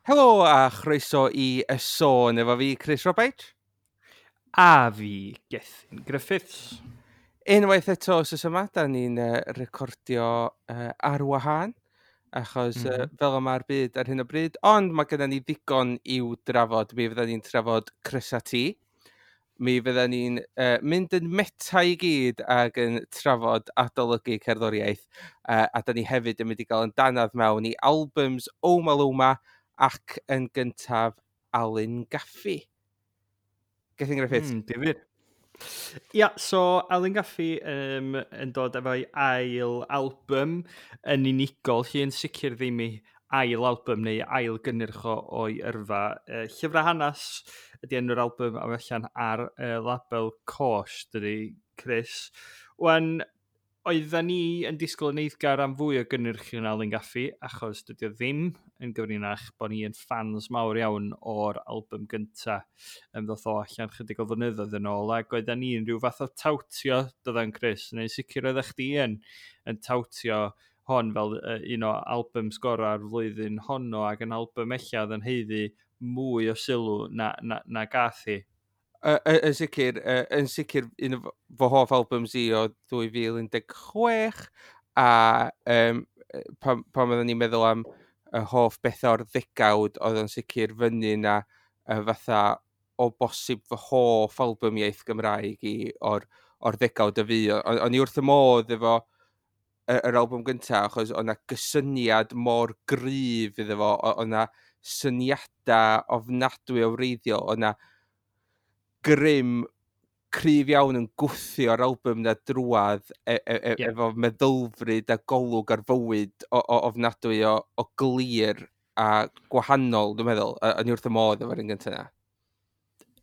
Helo a chroeso i Y Sôn efo fi, Chris Roberts. A fi, Gethin Griffiths. Unwaith eto wsos yma, da ni'n recordio ar wahân, achos fel yma'r byd ar hyn o bryd, ond mae gennym ni ddigon i'w drafod. Mi fydda ni'n trafod Crysa T. Mi fydda ni'n mynd yn meta i gyd ac yn trafod adolygu cerddoriaeth, a da ni hefyd yn mynd i gael yn danadd mewn i albums Omaloma ac yn gyntaf Alun Gaffey. Gethin Griffiths. Difyr. Ia, so Alun Gaffey yn dod efo'i ail album yn unigol, lle yn sicr ddim ei ail album neu ail gynnyrch o'i yrfa. Llyfrau Hanes ydy enw'r album a mae allan ar label Côsh, dydy, Chris. Wan, oedden ni yn disgwyl yn eiddgar am fwy o gynnyrch yn Alun Gaffey, achos dydy o ddim yn gyfrinach bod ni yn fans mawr iawn o'r album gynta ddoth o allan chydig o flynyddoedd yn ôl, ac oedden ni yn rhyw fath o tawtio, dyddan Chris, neu sicr oeddech chdi yn tawtio hon fel un o albums gorau'r flwyddyn honno, ac yn album ella oedd yn haeddu mwy o sylw na gath hi. Yn sicr un o fy hoff albums i o 2016, a pan oedden ni'n meddwl am y hoff bethau o'r ddegawd, oedd o'n sicr fyny na fatha o bosib fy hoff album iaith Gymraeg i o'r ddegawd y fi. O'n i wrth y modd efo yr album gyntaf, achos oedd 'na gysyniad mor gryf iddo fo, oedd 'na syniadau ofnadwy o wreiddiol, oedd 'na grym cryf iawn yn gwthio'r album na drwadd efo meddylfryd a golwg ar fywyd o ofnadwy o glir a gwahanol, dwi'n meddwl. O'n i wrth y modd efo'r un gyntaf yna.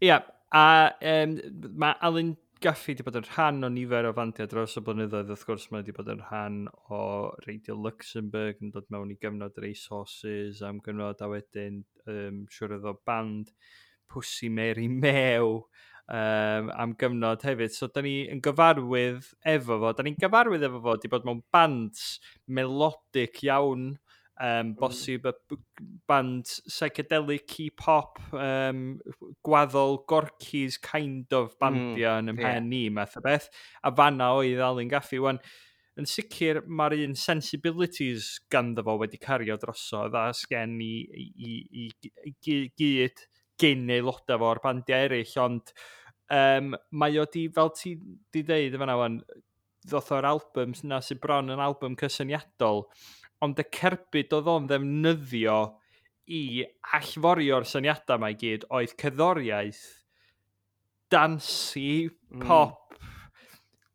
Ia, a mae Alun Gaffey wedi bod yn rhan o nifer o fandiau dros y blynyddoedd. Wrth gwrs, mae wedi bod yn rhan o Radio Luxembourg, yn dod mewn i gyfnod Racehorses am gyfnod, a wedyn siwr oedd o band Pwsi Mary Mew am gyfnod hefyd. So, da ni yn gyfarwydd efo fo. Da ni'n gyfarwydd efo fo, wedi bod mewn bands melodic iawn, bosib y band psychedelic pop, gwaddol Gorky's kind of bandia yn ymhen ni, math o beth. A fanna oedd Alun Gaffey. Wan, yn sicr mae'r un sensibilities ganddo fo wedi cario drosodd a sgen i gyd gyn aelodau fo o'r bandiau eraill, ond mae o di, fel ti di ddeud yn fan'na wan, ddoth o'r album yna sy'n bron yn album cysyniadol, ond y cerbyd oedd o'n ddefnyddio i allforio'r syniadau yma i gyd oedd cerddoriaeth, dancy, pop,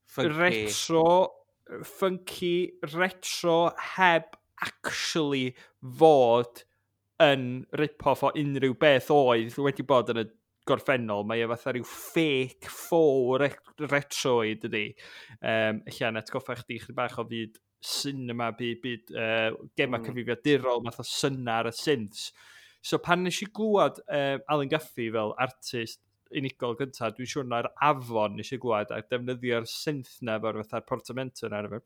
funky. Retro, funky, retro, heb actually fod yn rip-off o unrhyw beth oedd wedi bod yn y gorffennol. Mae e fatha rhyw fake faux retroid ydy. Ella yn atgoffa chdi chydig bach o fyd cinema, byd gema cyfrifiadurol, math o syna ar y synths. So pan nes i glwad Alun Gaffey fel artist unigol gyntaf, dwi'n siŵr na'r Afon nes i glwad a defnyddio'r synth na efo'r fatha'r portamento na efo'r,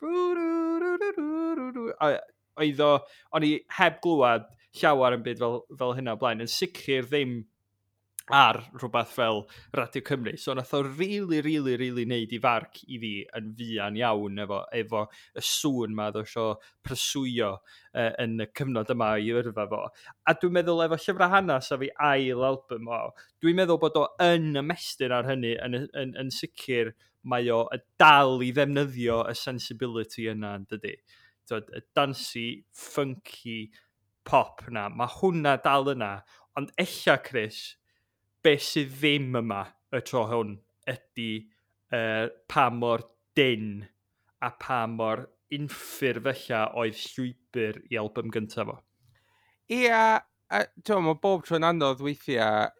a oedd o, o'n i heb glwad llawer yn byd fel hynna o blaen, yn sicr ddim ar rhywbeth fel Radio Cymru. So nath o really, really, really neud i farc i fi yn fuan iawn efo y sŵn ma oedd o isio pryswyo yn y cyfnod yma i yrfa fo. A dwi'n meddwl efo Llyfrau Hanes a fi ail album o, dwi'n meddwl bod o yn ymestyn ar hynny, yn sicr mae o y dal i ddefnyddio y sensibility yna, yn dydy. Twod, y dancy, funky pop na, mae hwnna dal yna, ond ella, Chris, beth sydd ddim yma y tro hwn ydy pa mor dyn a pa mor unffurf ella oedd llwybr i album gyntaf fo. Ia, a ti'n, mae bob tro'n anodd weithiau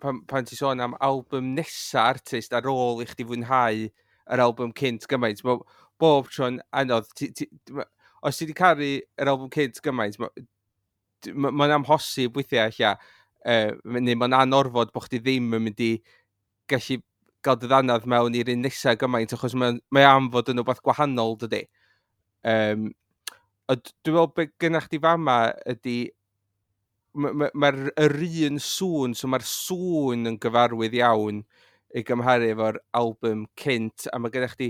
pan ti sôn am album nesa artist ar ôl i chdi fwynhau yr album cynt gymaint. Mae bob tro'n anodd. Os ti wedi caru yr album cynt gymaint, mae'n amhosib weithiau ella, neu mae'n anorfod bod chdi ddim yn mynd i gallu gael dy ddanadd mewn i'r un nesaf gymaint, achos mae am fod yn rhywbeth gwahanol, dydy. Ond dwi'n meddwl beth gynnach chdi fama ydy Mae'r ma, yr un sŵn, so mae'r sŵn yn gyfarwydd iawn i gymharu efo'r album cynt, a mae gennych chdi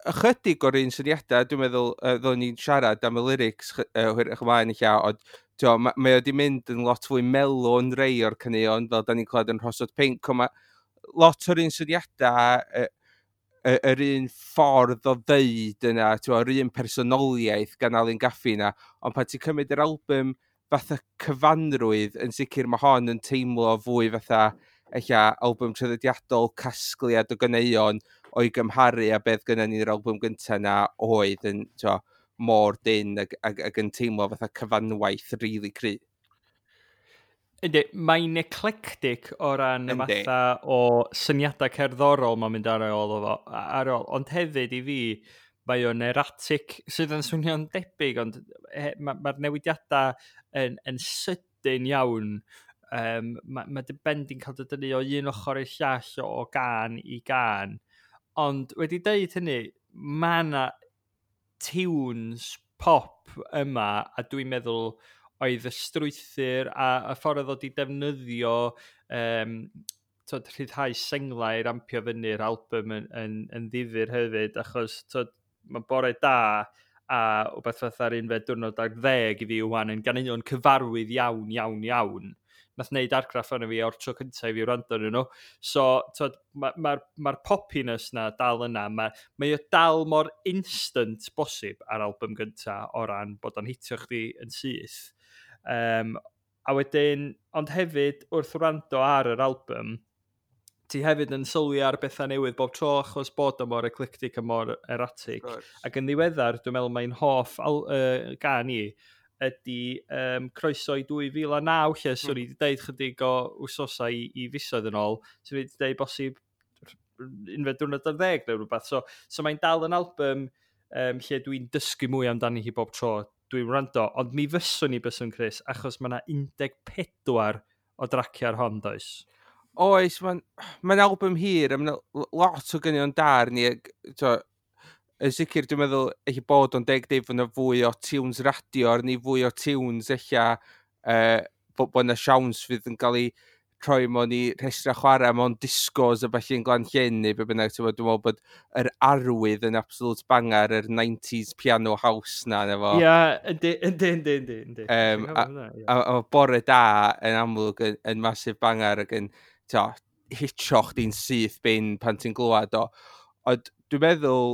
ychydig o'r un syniadau, dwi'n meddwl, ddo'n ni'n siarad am y lyrics hwyrach ymlaen eich, ond mae o wedi mynd yn lot fwy mellow yn rei o'r caneuon, fel da ni'n clywed yn Rhosod Pinc, ond mae lot o'r un syniadau, yr un ffordd o ddeud yna, yr un personoliaeth gan Alun Gaffi yna, ond pan ti'n cymryd yr album fatha cyfanrwydd, yn sicr mae hon yn teimlo fwy fatha ella album traddodiadol, casgliad o ganeuon o'i gymharu a beth gynna ni'r album gyntaf na oedd yn mor dyn ac yn teimlo fatha cyfanwaith rili really cry. Yndi, mae'n eclectic o ran y matha o syniadau cerddorol mae'n mynd ar ôl, ar ôl. Ond hefyd i fi, mae o'n erratic, sydd yn swnio'n debyg, ond mae'r ma newidiadau yn sydyn iawn. Mae dy ben di'n cael dy dynnu o un ochr i'r llall o gan i gan. Ond wedi deud hynny, mae yna tunes pop yma, a dwi'n meddwl oedd y strwythur a y ffordd oedd o 'di defnyddio rhyddhau senglau i rampio fyny'r album yn ddifyr hefyd, achos mae Bore Da a wbeth fatha'r unfed diwrnod ar ddeg i fi wan yn ganeuon cyfarwydd iawn, iawn, iawn. Nath wneud argraff arno fi o'r tro cyntaf i fi wrando arnyn nhw. So, mae'r ma poppiness na dal yna. Mae o dal mor instant bosib ar album gyntaf o ran bod o'n hitio chdi yn syth. A wedyn, ond hefyd, wrth wrando ar yr album, ti hefyd yn sylwi ar bethau newydd bob tro achos bod o mor eclectic a mor erratic. Ac yn ddiweddar, dwi'n meddwl mae'n hoff gan i ydy Croeso i 2009, lle swn i wedi deud chydig o wsosau i fisoedd yn ôl, swn i wedi deud bosib unfed diwrnod ar ddeg neu rhywbeth. So mae'n dal yn album lle dwi'n dysgu mwy amdani hi bob tro dwi'n wrando, ond mi fyswn i byswn, Chris, achos mae yna 14 o draciau ar hon, does? Oes, mae'n ma album hir, a mae'n lot o ganeuon da arni. Yn sicr, dwi'n meddwl eich bod o'n deg deud fod yna fwy o tunes radio arni, fwy o tunes eich bod yna siawns fydd yn cael ei troi mewn i rhestrau chwarae mewn discos a falle yn Glan Llyn neu be bynnag. Ti'n dwi'n meddwl bod yr arwydd yn absolute banger, yr 90s piano house na. Efo. Ia, yndi, yndi, yndi, yndi. Yndi. A Bore Da yn amlwg yn massive banger ac yn hitio chdi'n syth bin pan ti'n glywed o. Ond dwi'n meddwl,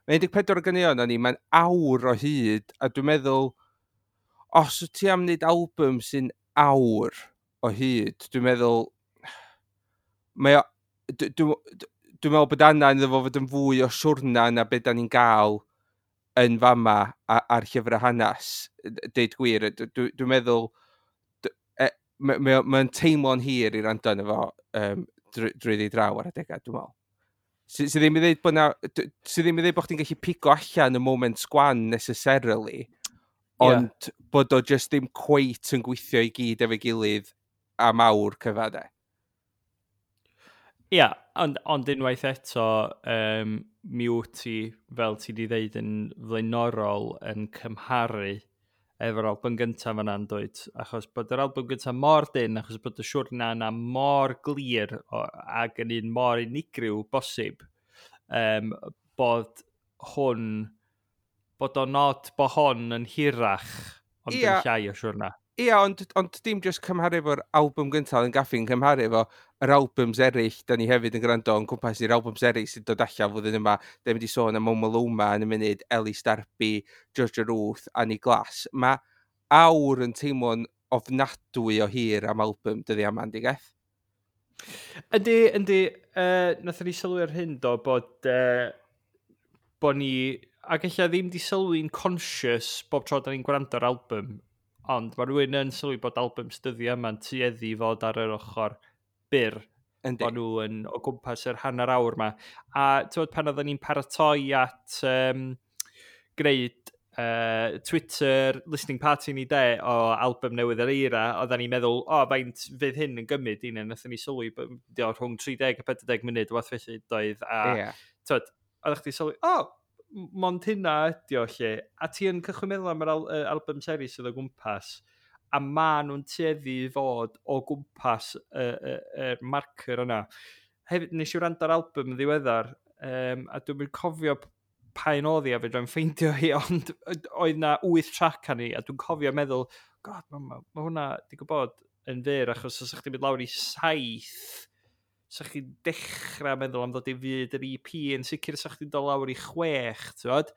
mae 14 o ganeuon o'n i, mae'n awr o hyd, a dwi'n meddwl, os wyt ti am wneud album sy'n awr o hyd, dwi'n meddwl, mae o, dwi'n meddwl bod angen iddo fo fod yn fwy o siwrna na beth da ni'n gael yn fama ar llyfrau hanes, deud gwir. Dwi'n meddwl, mae'n teimlo'n hir i rando arno fo drwy draw ar adegau, dwi'n meddwl. Sy ddim i ddweud bod na, sy ddim i ddweud bod chdi'n gallu pigo allan y moment gwan necessarily, ond bod o just ddim cweit yn gweithio i gyd efo'i gilydd am awr cyfa, de. Ia, ond unwaith eto, mi wyt ti, fel ti wedi dweud yn flaenorol, yn cymharu efo'r album gyntaf yna'n dweud, achos bod yr album gyntaf mor dyn, achos bod y siwrna yna mor glir ac yn un mor unigryw bosib, bod hwn, bod o'n nod bod hon yn hirach, ond yn llai o siwrna. Ia, ond dim just cymharu efo'r album gyntaf yn gaffi'n cymharu efo yr albums eraill, da ni hefyd yn gwrando yn cwmpas i'r albums eraill sy'n dod allan flwyddyn yma. Da ni'n mynd i sôn am Omaloma yn y munud, Ellis Darby, Georgia Ruth, Annie Glass. Mae awr yn teimlo'n ofnadwy o hir am album dyddi yma, yndi Geth? Yndi, yndi. Nathon ni sylwi ar hyn do, bod ni, ac ella ddim di sylwi'n conscious bob tro da ni'n gwrando ar album, ond mae rhywun yn sylwi bod albums dyddiau yma'n tueddu i fod ar yr ochr byr. Bod nhw yn o gwmpas yr hanner awr yma. A ti'n pan oedden ni'n paratoi at gwneud Twitter listening party ni de o album newydd yr Eira, oedden ni'n meddwl, o, faint fydd hyn yn gymryd i ni, nathon ni sylwi rhwng 30 a 40 munud, wath felly doedd. A yeah. Oeddech chdi sylwi, o, mond hynna ydi o lle. A ti yn cychwyn meddwl am yr album series sydd o gwmpas. A maen nhw'n tueddu i fod o gwmpas y marker yna. Hefyd, nes i wrando ar album yn ddiweddar, a dwi'n cofio pa un oedd hi a fedrai'm ffeindio hi, ond oedd na 8 track arni, a dwi'n cofio meddwl, "God, mae ma hwnna di gwybod yn fyr," achos os ydych chi'n mynd lawr i 7, sa chi'n dechrau meddwl am ddod i fyd yr EP, yn sicr sa chdi'n dod lawr i 6, ti'n gwbod?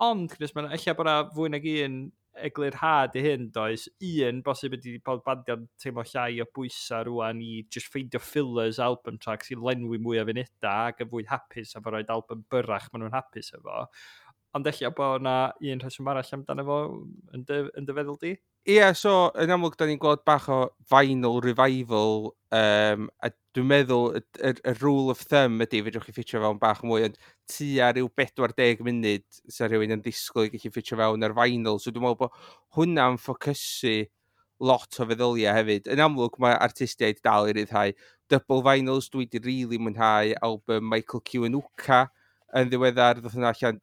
Ond, Chris, mae'n ella bod yna fwy nag un eglurhad i hyn, does? Un, bosib ydy bod bandiau'n teimlo llai o bwysau rwan i just ffeindio fillers album tracks i lenwi mwy o funudau ac yn fwy hapus efo roed album byrrach maen nhw'n hapus efo. Ond ella bod yna un rheswm arall amdano fo yn dy feddwl di? Ie, yeah, so yn amlwg da ni'n gweld bach o vinyl revival, a dwi'n meddwl y rule of thumb ydy, fedrwch chi ffitio fewn bach mwy, ond tua rhyw 40 munud sa rhywun yn disgwyl i gallu ffitio fewn ar vinyl, so dwi'n meddwl bod hwnna'n ffocysu lot o feddyliau hefyd. Yn amlwg mae artistiaid dal i ryddhau double vinyls. Dwi wedi really mwynhau album Michael Kiwanuka yn ddiweddar, ddoth hwnna allan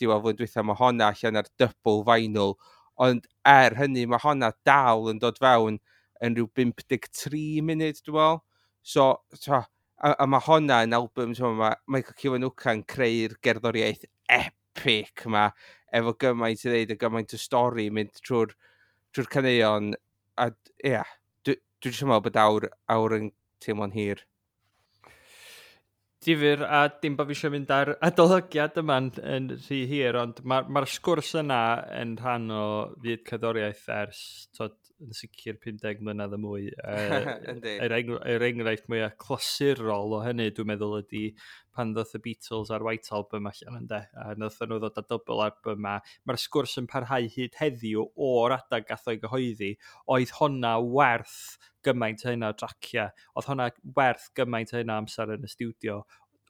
diwedd flwyddyn dwytha, mae honna allan ar double vinyl, ond er hynny mae honna dal yn dod fewn yn rhyw 53 munud, dwi'n meddwl. So, so a mae honna yn album, so mae Michael Kiwanuka yn creu'r gerddoriaeth epic yma, efo gymaint i ddeud a gymaint o stori mynd trwy'r caneuon. A ie, yeah, dwi jyst yn meddwl bod awr yn teimlo'n hir. Difyr, a dim bod fi eisiau mynd ar adolygiad yma'n yn rhy hir, ond mae'r ma sgwrs yna yn rhan o fyd cerddoriaeth ers, tod, yn sicr 50 mlynedd a mwy. Yr enghraifft mwyaf clasurol o hynny, dwi'n meddwl, ydy pan ddoth y Beatles a'r White Album allan ynddo, a nath nhw ddod â double album yma. Mae'r sgwrs yn parhau hyd heddiw o'r adeg gath o'i gyhoeddi, oedd honna werth gymaint o hynna o draciau, oedd honna werth gymaint o hynna amser yn y stiwdio,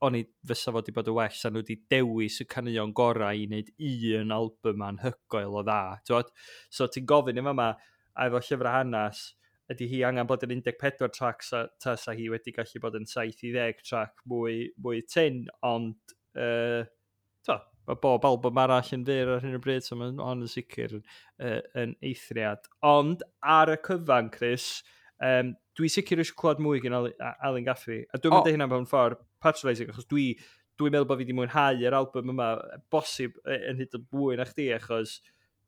oni fysa fod wedi bod yn well sa nhw wedi dewis y caneuon gorau i wneud un album anhygoel o dda. T'wod? So ti'n gofyn i yma, a efo llyfrau hanes, ydy hi angen bod yn 14 track tasa hi wedi gallu bod yn 7 i 10 track mwy tyn, ond to, mae bob album arall yn fyr ar hyn o bryd, so mae'n hon yn sicr yn eithriad. Ond ar y cyfan, Chris, dwi sicr eisiau clywed mwy gan Alun Gaffey. A dwi'n mynd hynna mewn ffordd patronising, achos dwi'n meddwl bod fi wedi mwynhau yr album yma, bosib yn hyd yn mwy na chdi, achos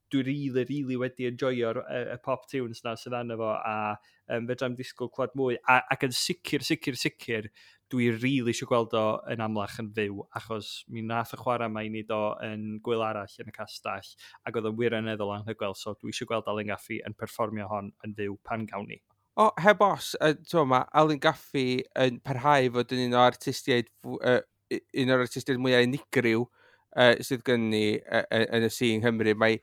dwi really, really wedi enjoyo'r y pop tunes na sydd arno fo, a fedrai'm disgwyl clywed mwy. Ac yn sicr, sicr, sicr, dwi really eisiau gweld o yn amlach yn fyw, achos mi nath y chwarae yma i ni do yn gwyl arall yn y castell, ac oedd o'n wirioneddol anhygoel, so dwi eisiau gweld Alun Gaffey yn perfformio hon yn fyw pan gawn ni. O, heb os, t'mo, mae Alun Gaffey yn parhau fod yn un o'r artistiaid mwyaf unigryw sydd gen ni yn y sîn Nghymru. Mae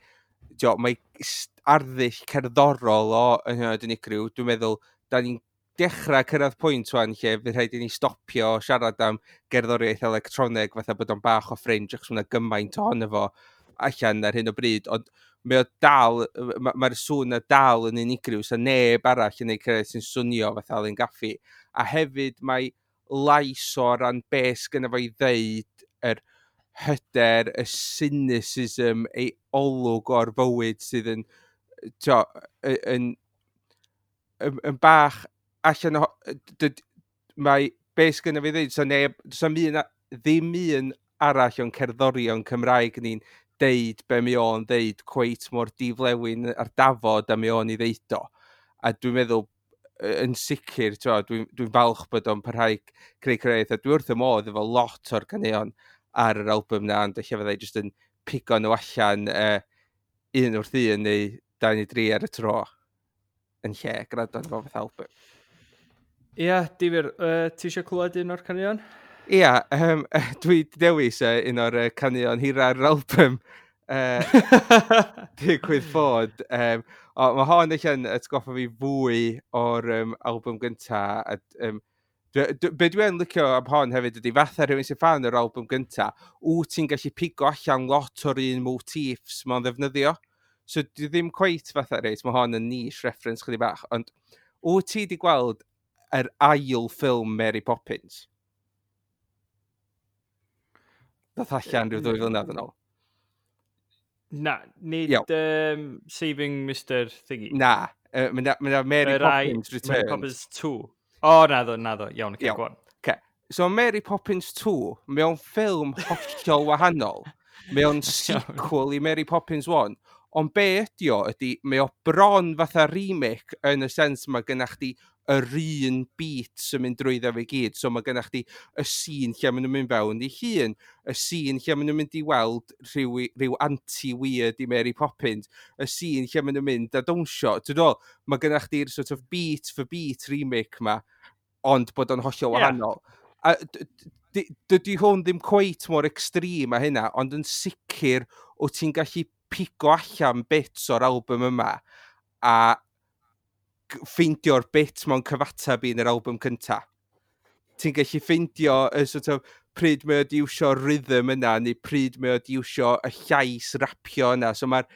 arddull cerddorol o yn hynod unigryw. Dwi'n meddwl, da ni'n dechrau cyrraedd pwynt wan lle fydd rhaid i ni stopio siarad am gerddoriaeth electroneg fatha bod o'n bach o fringe, achos mae gymaint ohono fo allan ar hyn o bryd, ond mae o dal, mae'r sŵn na dal yn unigryw, so neb arall yn ei cyrraedd sy'n swnio fatha Alun Gaffey. A hefyd mae lais o ran be sgynno fo i ddeud, yr hyder, y cynicism, ei olwg o'r fywyd sydd yn, t'o, yn bach allan o... Mae be sgynno fi ddeud, so neb, does 'na'm un, ddim un arall o'n cerddorion Cymraeg ni'n deud be mae o'n deud cweit mor diflewyn ar dafod a mae o'n i ddeud o. A dwi'n meddwl, yn sicr, dwi'n falch bod o'n parhau creu creu, a dwi wrth y modd efo lot o'r caneuon ar yr album na, ond ella fyddai jyst yn pigo nhw allan un wrth un neu dau neu dri ar y tro yn lle gwrando arno fo fatha album. Ie, yeah, difyr. Ti eisiau clywed un o'r caneuon? Ia, dwi 'di dewis un o'r caneuon hira'r album. Digwydd bod. O, mae hon eich yn atgoffa fi fwy o'r album gynta. A, be dwi yn licio am hon hefyd ydy fatha rhywun sy'n fan o'r album gynta, wyt ti'n gallu pigo allan lot o'r un motifs mae'n ddefnyddio. So dwi ddim cweit fatha, reit, mae hon yn niche reference chydig bach, ond wyt ti wedi gweld yr ail ffilm Mary Poppins? Ddoth allan rhyw 2 flynedd yn ôl. Na, nid Saving Mr Thingy. Na, mae Mary Poppins Returns. Mary Poppins 2. O, naddo, naddo. Iawn, okay, go on. Okay. So Mary Poppins 2, mewn ffilm hollol wahanol, mewn sequel i Mary Poppins 1, ond be ydi o ydy, mae o bron fatha remake yn y sens mae gennych chdi yr un beat sy'n mynd drwyddo fe gyd. So mae gennych chdi y scene lle maen nhw'n mynd fewn i hun, y scene lle maen nhw'n mynd i weld rhyw anti-weird i Mary Poppins, y scene lle maen nhw'n mynd a dawnsio. Ti'n dod, mae gennych chdi'r sort of beat for beat remake ma, ond bod o'n hollol wahanol. A dydy hwn ddim cweit mor extreme a hynna, ond yn sicr o ti'n gallu pigo allan bits o'r album yma a ffeindio'r bit mewn cyfateb i yn yr album cynta. Ti'n gallu ffeindio y sort of, pryd mae o di iwsio rhythm yna, neu pryd mae o di iwsio y llais rapio yna. So mae'r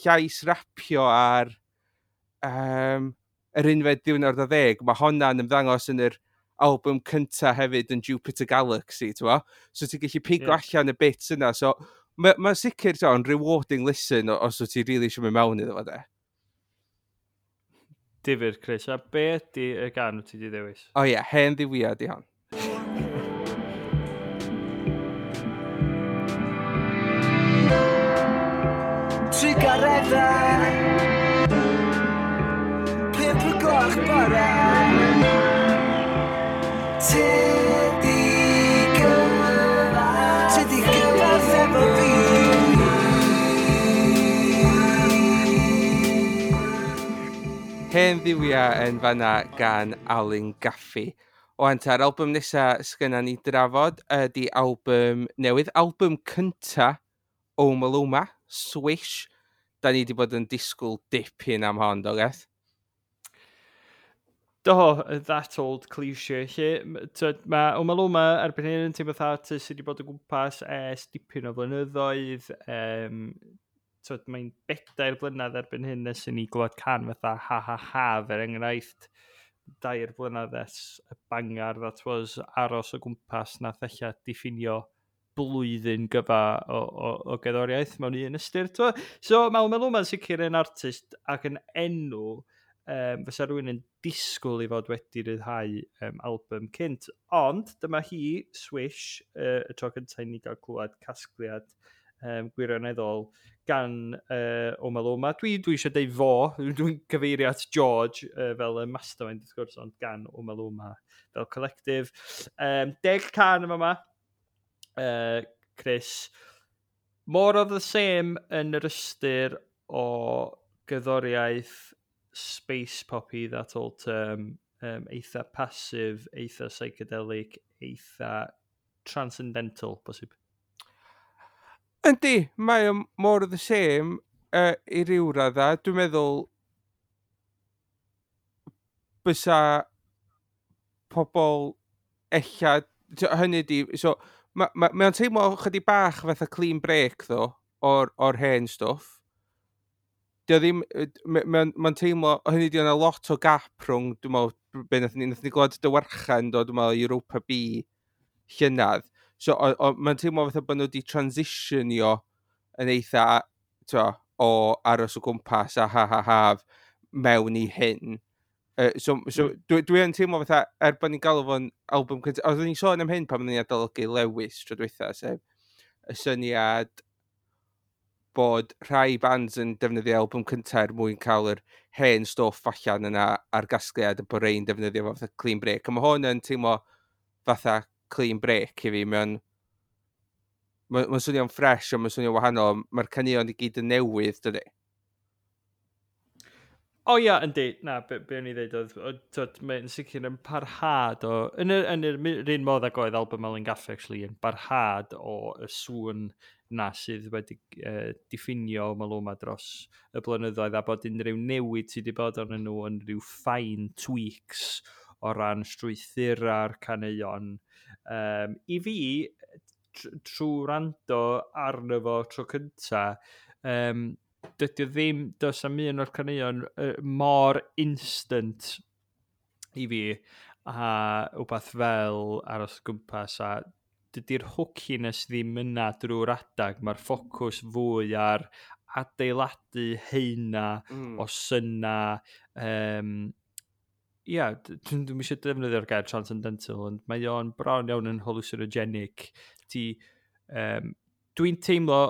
llais rapio ar yr unfed diwrnod o ddeg, mae honna'n ymddangos yn yr album cynta hefyd yn Jupiter Galaxy, ti'n bo? So ti'n gallu pigo allan y bits yna. So mae'n ma sicr yn rewarding listen os wyt ti really eisiau mynd mewn iddo fo de. Difyr, Chris. A be ydy y gan wyt ti wedi ddewis? O ie, Hen Dduwiau di hon. Trugareddau 5 o'r gloch bore. Ti di gyfarth, ti di gyfarth efo fi. Hen Dduwiau yn fanna gan Alun Gaffey. O anta'r album nesa sgynna ni drafod ydy album newydd, album cynta Omaloma, Swish. Da ni wedi bod yn disgwyl dipyn am hon, do Geth? Do, that old cliché. Lle, mae Omaloma erbyn hyn yn teimlo fatha artist sydd wedi bod o gwmpas ers dipyn o flynyddoedd. Mae'n 4 blynedd erbyn hyn nes i ni glywed can fatha Ha Ha Ha, er enghraifft, 2 blynedd ers y bangar that was Aros o Gwmpas, nath ella diffinio blwyddyn gyfa o gerddoriaeth mewn un ystyr. T'mo? So mae Omaloma'n sicr yn artist ac yn enw fysa rhywun yn disgwyl i fod wedi rhyddhau album cynt. Ond dyma hi, Swish, y tro cyntaf i ni gael clywed casgliad gwirioneddol gan Omaloma. Dwi eisiau deud fo, dwi'n cyfeirio at George fel y mastermind wrth gwrs, ond gan Omaloma fel collective. 10 can yma yma, Chris. More of the same yn yr ystyr o gerddoriaeth space poppy, that old term, eitha passive, eitha psychedelic, eitha transcendental, bosib. Yndi, mae o more of the same i ryw radda. Dwi'n meddwl bysa pobl ella, hynny di, so, mae ma, ma o'n teimlo chydig bach fatha clean break, ddo, o'r hen stwff. Dio ddim, mae'n ma teimlo, hynny di, yna lot o gap rhwng, dwi'n meddwl, be nath ni glwad Dywarchan, do, dwi'n meddwl, Europa B llynedd. So, mae'n teimlo fatha bod nhw wedi transitionio yn eitha, t'o, o Aros o Gwmpas a Ha Ha Haf mewn i hyn. So dwi yn teimlo fatha, er bod ni'n galw fo'n album cyntaf, oeddwn ni'n sôn am hyn pan oeddwn ni'n adolygu Lewis tro dwytha, sef y syniad bod rhai bands yn defnyddio album cyntaf er mwyn cael yr hen stwff allan yna ar gasgliad, a bod rei'n defnyddio fo fatha clean break. A mae hwn yn teimlo fatha clean break i fi. Mae'n ma swnio'n ffres, ond mae'n swnio'n wahanol. Mae'r caneuon i gyd yn newydd, dydy? O ia, yndi. Na, be o'n i ddeud oedd, t'wod, mae'n sicr yn parhad o... Yn yr un modd ag oedd album Alun Gaffey, actually, yn barhad o y sŵn na sydd wedi diffinio Omaloma dros y blynyddoedd, a bod unrhyw newid sydd wedi bod arnyn nhw yn rhyw fine tweaks o ran strwythura'r caneuon. I fi, trwy wrando arno fo tro cynta, dydy o ddim, does am un o'r caneuon mor instant i fi a wbath fel Aros o Gwmpas a Dydy'r hookiness ddim yna drwy'r adag. Mae'r ffocws fwy ar adeiladu heina o syna. Ia, dwi'n eisiau defnyddio'r gair transcendental, ond mae o'n bron iawn yn hallucinogenic. Dwi'n teimlo,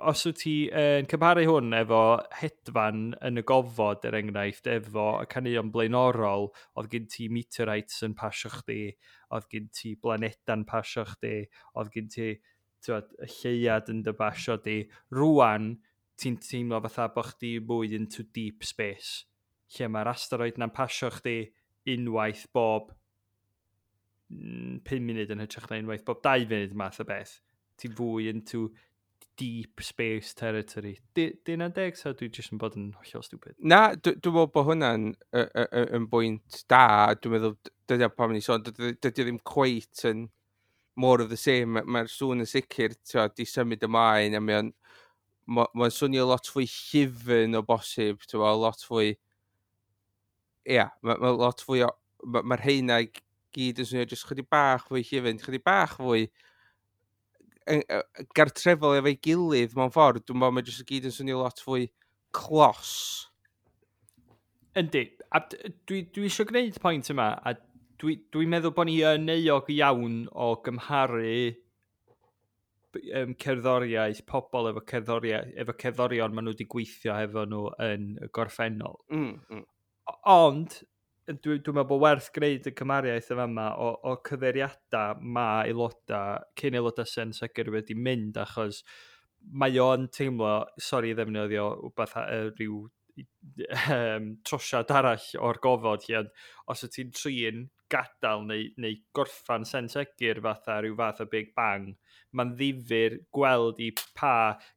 os wyt ti yn cymharu hwn efo Hedfan yn y Gofod, er enghraifft, efo y caneuon blaenorol, oedd gen ti meteorites yn pasio chdi, oedd gen ti blaneda'n pasio chdi, oedd gen ti, t'wod, y lleuad yn dy basio di. Rwan, ti'n teimlo fatha bod chdi mwy into deep space, lle mae'r asteroid na'n pasio chdi unwaith bob 5 munud yn hytrach na unwaith bob 2 funud math o beth. Ti'n fwy into deep space territory. Di hynna'n deg, so dwi jyst yn bod yn hollol stupid? Na, dwi'n meddwl bod hwnna'n yn bwynt da. Dwi'n meddwl, dydy o pam ni sôn, dydy o ddim cweit yn more of the same. Mae'r sŵn yn sicr, ti'n di symud ymlaen, a mae'n ma swnio lot fwy llyfn o bosib, ti'n lot fwy. Ia, ma lot fwy o. Mae'r rheina i gyd yn swnio jyst chydig bach fwy llyfn, chydig bach fwy gartrefol efo'i gilydd mewn ffordd. Dwi'n meddwl mae jyst i gyd yn swnio lot fwy clos. Yndi, a dwi eisiau gwneud pwynt yma, a dwi meddwl bod ni yn euog iawn o gymharu cerddoriaeth, pobl efo cerddoriaeth, efo cerddorion maen nhw wedi gweithio hefo nhw yn y gorffennol. Ond, dwi'n meddwl bod werth gwneud y cymariaeth yma yma o cyfeiriadau mae aelodau, cyn aelodau Sen Segur wedi mynd, achos mae o'n teimlo, sori i ddefnyddio wbeth rhyw trosiad arall o'r gofod lle, ond os wyt ti'n trin gadael neu gorffan Sen Segur fatha rhyw fath o Big Bang, mae'n ddifyr gweld i pa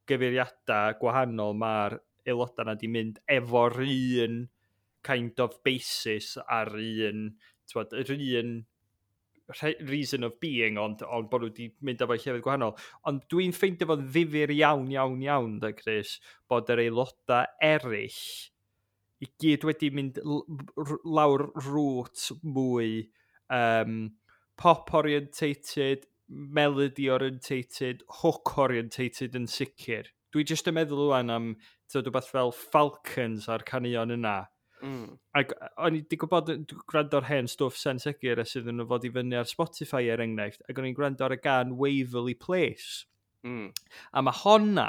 gyfeiriadau gwahanol mae'r aelodau yna di mynd efo'r un kind of basis a'r un, t'wod, yr un reason of being, ond bod nhw wedi mynd efo llefydd gwahanol. Ond dwi'n ffeindio fo'n ddifyr iawn, iawn, iawn, da Chris, bod yr aelodau eraill i gyd wedi mynd lawr route mwy pop-orientated, melody-orientated, hook-orientated yn sicr. Dwi jyst yn meddwl rwan am, t'wod, rhywbeth fel Falcons a'r caneuon yna. Ac o'n i wedi gwybod, dwi'n gwrando ar hen stwff Sen Segur ers iddyn nhw fod i fyny ar Spotify er enghraifft, ac o'n i'n gwrando ar y gan Waverly Place. A mae honna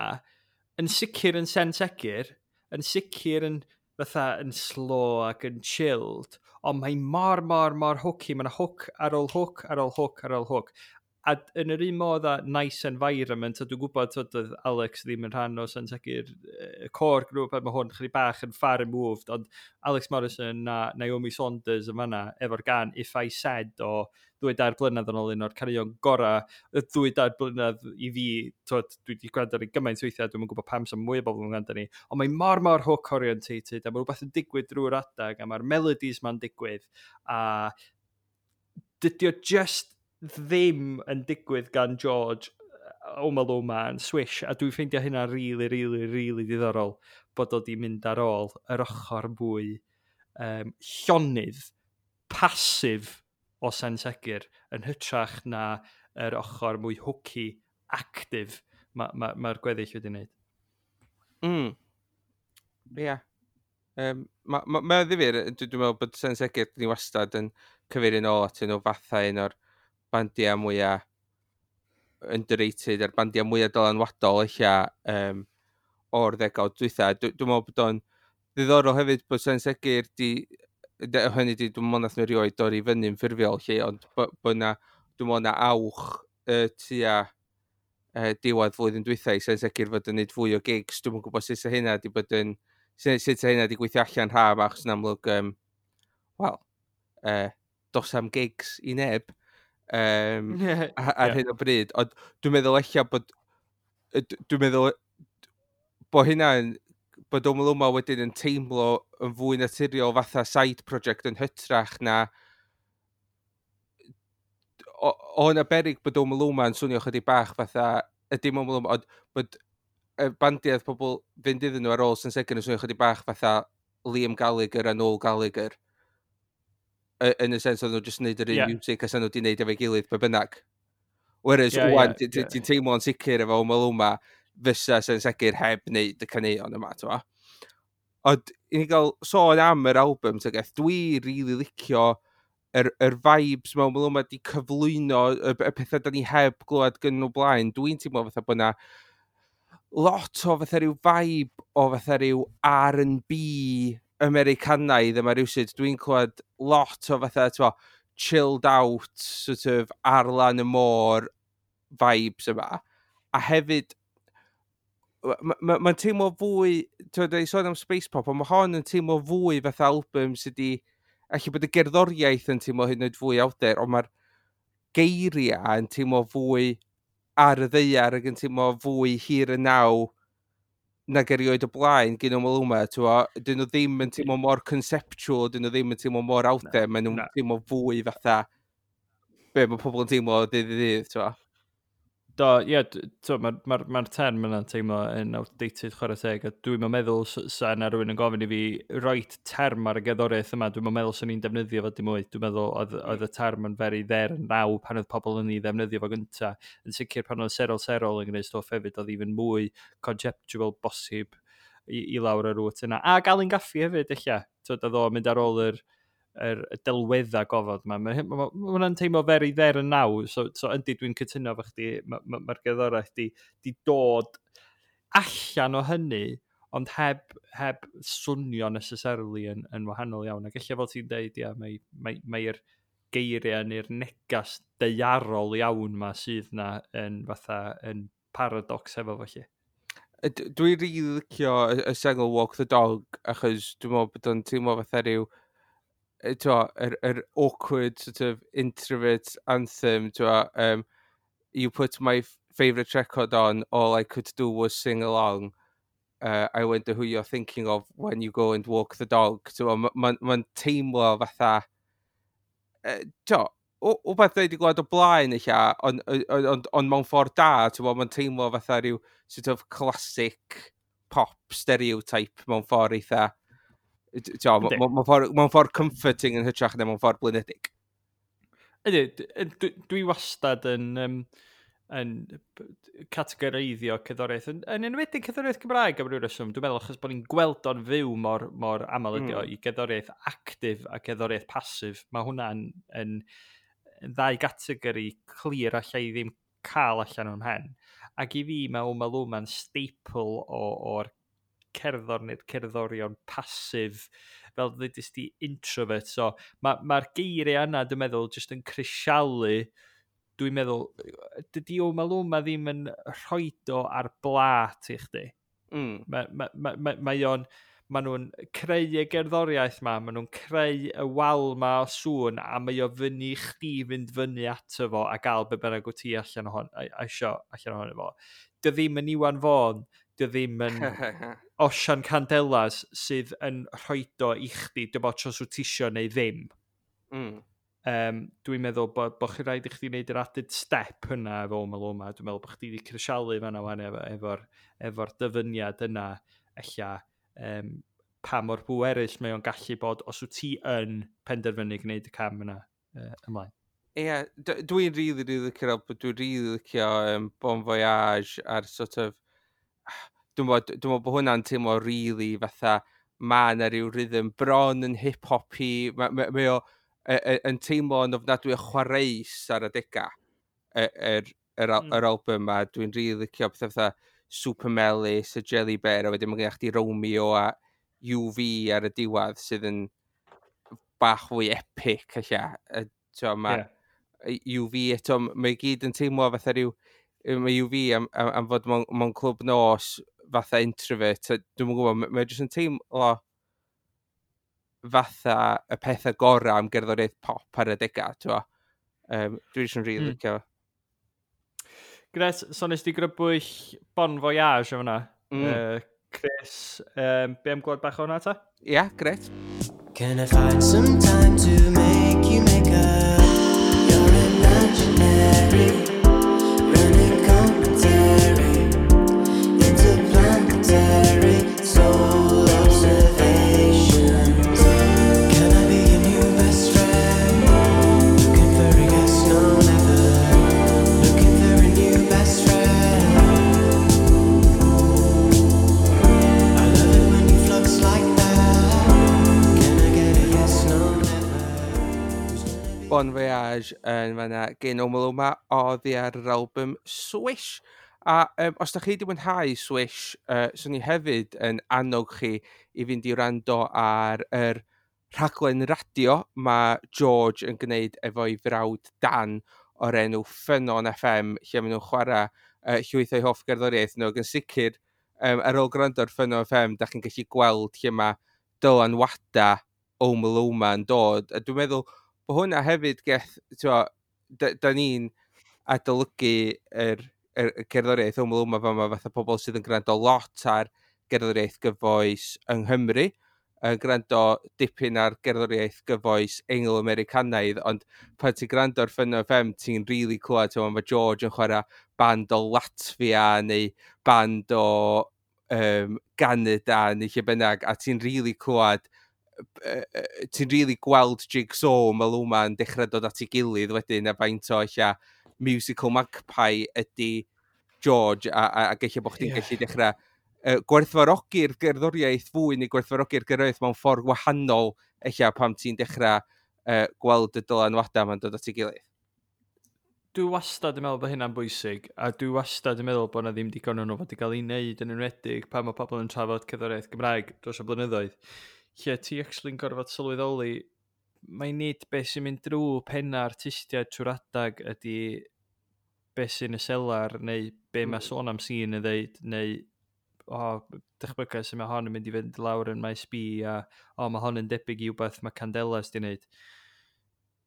yn sicr yn Sen Segur, yn sicr yn fatha yn slow ac yn chilled, ond mae mor, mor, mor hooky. Mae'n hook ar ôl hook ar ôl hook ar ôl hook. A yn yr un modd â Nice Environment, a dwi'n gwybod, t'wod, oedd Alex ddim yn rhan o Sen Segur, core group, a mae hwn chydig bach yn far removed, ond Alex Morrison a Naomi Saunders yn fanna, efo'r gan If I Said o 2-3 blynedd yn ôl, un o'r caneuon gorau y 2-3 blynedd i fi, t'wod, dwi wedi gwrando ar ei gymaint weithiau, dwi'm yn gwybod pam sy'n mwy o bobl yn gwrando ni, ond mae mor, mor hook orientated, a mae rhywbeth yn digwydd drwy'r adag, a mae'r melodies ma'n digwydd, a dydy o just ddim yn digwydd gan George Omaloma yn Swish, a dwi'n ffeindio hynna really, really, really diddorol bod o di mynd ar ôl yr ochr mwy llonydd, pasif o Sen Segur yn hytrach na yr ochr mwy hooky, active mae'r ma gweddill wedi wneud. Ie. Yeah. Mae ma ddifyr, dwi'n meddwl bod Sen Segur ni wastad yn cyfeirio nôl atyn nhw fatha un o'r bandiau mwyaf underrated a'r bandiau mwyaf dylanwadol eich o'r ddegawd dwytha. Dwi'n meddwl bod o'n ddiddorol hefyd bod Sen Segur di, hynny di, dwi'n meddwl nath nhw erioed dorri fyny'n ffurfiol lle, ond bod na, dwi'n meddwl na awch tua diwedd flwyddyn dwytha i Sen Segur fod yn neud fwy o gigs. Dwi'n gwybod sut sa hynna di bod yn, sut sa hynna di gweithio allan rha yma, achos yn amlwg, wel, dos am gigs i neb ar hyn o bryd. Ond dwi'n meddwl ella bod, dwi'n meddwl bod hynna'n, bod Omaloma wedyn yn teimlo yn fwy naturiol fatha side project yn hytrach na o yna berig bod Omaloma yn swnio chydig bach fatha, y dim Omaloma, ond bod y bandiau pobl fynd iddyn nhw ar ôl Sen Segur yn swnio chydig bach fatha Liam Gallagher a Noel Gallagher. Yn y sens oedd nhw jyst yn neud yr un music a nhw wedi neud efo'i gilydd be bynnag. Whereas, wan, ti'n teimlo'n sicr efo Omaloma fysa Sen Segur heb wneud y caneuon yma, ti'n. Ond, i ni gael sôn am yr album, ti'n geth, dwi really licio yr vibes mewn Omaloma di cyflwyno y pethau da ni heb glywed gyn nhw blaen. Dwi'n teimlo fatha bod na lot o fatha rhyw vibe o fatha rhyw R&B Americanaidd yma rhywsut. Dwi'n clywed lot o fatha, ti'n, chilled out, sort of ar lan y môr vibes yma. A hefyd, mae'n ma teimlo fwy, ti'n dweud sôn am space pop, ond mae hon yn teimlo fwy fatha album sydd wedi, allu bod y gerddoriaeth yn teimlo hyd yn oed fwy out there, ond mae'r geiriau yn teimlo fwy ar y ddaear ac yn teimlo fwy here and now nag erioed o blaen gyn Omaloma, ti'n bo, dyn nhw ddim yn teimlo mor conceptual, dyn nhw ddim yn teimlo mor out there, maen nhw'n teimlo fwy fatha be mae pobl yn teimlo o ddydd i ddydd, ti'n bo. Do, ie, mae'r ma term yna'n teimlo yn outdated, chwarae teg, a dwi'n meddwl sa yna rhywun yn gofyn i fi roid term ar y gerddoriaeth yma, dwi'n meddwl swn i'n defnyddio fo dim mwy. Dwi'n meddwl oedd y term yn very there and now pan oedd pobl yn ei ddefnyddio fo gynta. Yn sicr pan oedd Serol Serol yn gwneud stwff hefyd, oedd even mwy conceptual bosib i lawr y route yna. A Alun Gaffey hefyd, eich. Twyd, oedd o'n mynd ar ôl yr delweddau gofod yma. Mae ma hwnna'n teimlo very there and now. So yndi, dwi'n cytuno efo chdi, mae'r ma gerddoriaeth di dod allan o hynny, ond heb swnio necessarily yn wahanol iawn. Ac ella fel ti'n deud, ia, mae'r mae geiriau neu'r negas daearol iawn ma sydd na yn fatha yn paradox efo felly. Dwi'n rili licio y sengl Walk the Dog, achos dwi'n meddwl bod o'n teimlo fatha rhyw t'wo, yr awkward sort of introvert anthem, t'wo, "You put my favourite record on, all I could do was sing along. I wonder who you're thinking of when you go and walk the dog." T'wo, mae'n ma teimlo fatha, t'wo, wbeth dwi wedi gweld o blaen eich, ond mewn ffordd da, t'wo, mae'n teimlo fatha rhyw sort of classic pop stereotype mewn ffordd eitha, t'wo, mewn ffordd comforting yn hytrach na mewn ffordd blinedig. Ydy, dwi wastad yn categoreiddio cerddoriaeth, yn enwedig cerddoriaeth Cymraeg am ryw reswm, dwi'n meddwl achos bod ni'n gweld o'n fyw mor aml ydi o, i gerddoriaeth actif a gerddoriaeth pasif. Mae hwnna'n yn ddau gategori clir allai ddim cael allan o'n mhen. Ac i fi mae Omaluma'n staple o'r cerddor neu'r cerddorion pasif, fel ddudis di, introvert. So mae'r ma geiriau yna, dwi'n meddwl, jyst yn crisialu. Dwi'n meddwl, dydy Omaluma ddim yn rhoid o ar blat i chdi. Mae ma, ma, ma, mae o'n, ma nhw'n creu y gerddoriaeth ma, ma nhw'n creu y wal ma o sŵn, a mae o fyny i chdi fynd fyny ato fo a gael be bynnag wyt ti allan ohon, a isio allan ohono fo. Dy ddim yn Iwan Fôn, dy ddim yn Osian Candelas sydd yn rhoid o i chdi, dy bod os wyt ti isio neu ddim. Dwi'n meddwl bod chi rhaid i chdi wneud yr added step yna efo Omaloma. Dwi'n meddwl bod chdi wedi crisialu fan'na wan efo dyfyniad yna, ella pa mor bwerus mae o'n gallu bod os wyt ti yn penderfynu gwneud y cam yna ymlaen. Ie, yeah, dwi'n really, really licio'r album. Dwi'n really licio Bon Voyage a'r sort of... Dwi'n meddwl bod hwnna'n teimlo really fatha ma na ryw rhythm bron yn hip-hoppy. Mae ma o yn teimlo yn ofnadwy o chwareus ar adega yr album ma. Dwi'n really licio pethau fatha Super Melys, y Jelly Bear, a wedyn mae gennych chdi Romeo a UV ar y diwedd sydd yn bach fwy epic, ella. T'wo, mae UV eto, mae gyd yn teimlo fatha rhyw, mae UV am fod mewn clwb nos fatha introvert, a dwi'm yn gwybod, mae jyst yn teimlo fatha y pethau gorau am gerddoriaeth pop ar y dega, t'wo. Dwi jyst yn rili licio. Gret, so nes di grybwyll Bon Voyage o fyna. Chris, be am glwad bach o hwnna ta? Ia, yeah, gret. Can I find some time to make you make up your imaginary running commentary, interplanetary soul observations? Can I be your new best friend? Looking for a yes, no, never. Looking Bon Voyage yn fanna gen Omaloma oddi ar yr album Swish. A os da chi wedi mwynhau Swish, swn i hefyd yn annog chi i fynd i wrando ar yr rhaglen radio mae George yn gwneud efo'i frawd Dan o'r enw Ffynnon FM, lle maen nhw'n chwarae llwyth o'i hoff gerddoriaeth nhw. Ac yn sicr, ar ôl gwrando ar Ffynnon FM, da chi'n gallu gweld lle mae dylanwada Omaloma yn dod. A dwi'n meddwl bod hwnna hefyd geth, t'mo, da ni'n adolygu yr cerddoriaeth Omaloma fama fatha pobl sydd yn gwrando lot ar gerddoriaeth gyfoes yng Nghymru, yn gwrando dipyn ar gerddoriaeth gyfoes Eingl-Americanaidd, ond pan ti'n gwrando ar Ffynnon FM, ti'n really clywed, t'mo, mae George yn chwarae band o Latvia neu band o Canada neu lle bynnag, a ti'n really clywed, ti'n really gweld jigsaw Omaloma yn dechrau dod at ei gilydd wedyn, a faint o ella musical magpie ydy George, a gallu bod chdi'n gallu dechrau gwerthfawrogi'r gerddoriaeth fwy neu gwerthfawrogi'r gerddoriaeth mewn ffordd wahanol ella pam ti'n dechrau gweld y dylanwadau ma'n dod at ei gilydd. Dwi wastad yn meddwl bod hynna'n bwysig, a dwi wastad yn meddwl bod 'na ddim digon o'n nhw fod i gael ei wneud, yn enwedig pan mae pobl yn trafod cerddoriaeth Gymraeg dros y blynyddoedd, lle ti actually'n gorfod sylweddoli, mae nid beth sy'n mynd drwy penna artistiaid trwy'r adag ydy beth sy'n y selar, neu be mae Sôn am Sîn yn ddeud, neu o, dychmyga sy'n mae hon yn mynd i fynd lawr yn Maes B, a o, mae hon yn debyg i wbeth mae Candelas di wneud.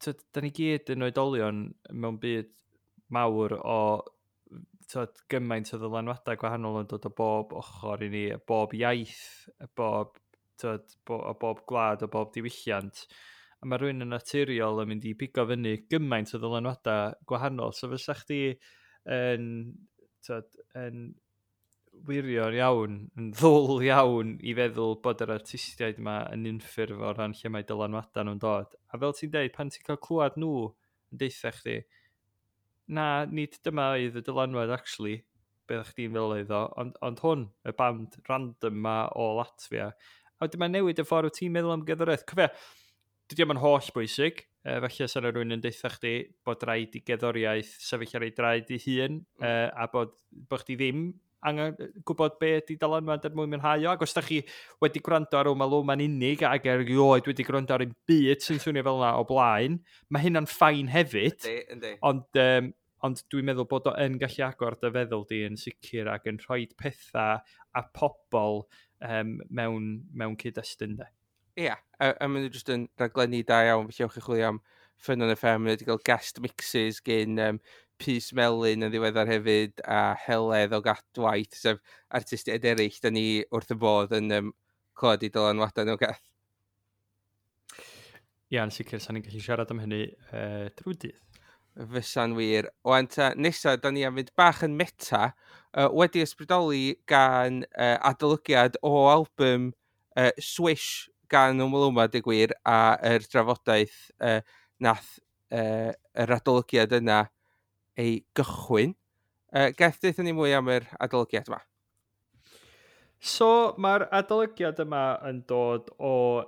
Tyd, da ni gyd yn oedolion mewn byd mawr o, tyd, gymaint o ddylanwadau gwahanol yn dod o bob ochr i ni, bob iaith, bob, tyd, o bob gwlad, o bob diwylliant. A mae rhywun yn naturiol yn mynd i pigo fyny gymaint o ddylanwadau gwahanol. So fysa chdi yn, tyd, yn wirion iawn, yn ddwl iawn i feddwl bod yr artistiaid yma yn unffurf o ran lle mae dylanwadau nhw'n dod. A fel ti'n deud, pan ti'n cael clywed nhw yn deutha chdi, na, nid dyma oedd y dylanwad actually, beth chdi'n feddwl oedd o, ond hwn, y band random ma o Latvia. A wedyn mae'n newid y ffordd wyt ti'n meddwl am gerddoriaeth. Cofia, dydy o'm yn holl bwysig, falle sa 'na rywun yn deutha chdi bod rhaid i gerddoriaeth sefyll ar ei draed ei hun, a bod chdi ddim angen gwybod be ydy dylanwad er mwyn mwynhau o. Ac os da chi wedi gwrando ar Omaloma'n unig ac erioed wedi gwrando ar un byd sy'n swnio fel yna o blaen, mae hynna'n fine hefyd. Yndi, yndi. Ond dwi'n meddwl bod o yn gallu agor dy feddwl di yn sicr ac yn rhoi pethau a pobl mewn cyd-destun de. Ie, a maen nhw jyst yn raglenni da iawn, felly ewch i chwilio am Ffynnon FM, maen nhw wedi cael guest mixes gen Pys Melyn yn ddiweddar hefyd, a Heledd o Gadwaith, sef artistiaid eraill, da ni wrth y bodd yn clywed i dylanwadau nhw, Geth. Ie, yn sicr, sa'n ni'n gallu siarad am hynny drwy dydd. Fysa'n wir. Wan ta, nesa, da ni am fynd bach yn meta, wedi ysbrydoli gan adolygiad o album Swish gan Omaloma, dweud gwir, a yr drafodaeth nath yr adolygiad yna ei gychwyn. Geth, deutha ni mwy am yr adolygiad yma. So, mae'r adolygiad yma yn dod o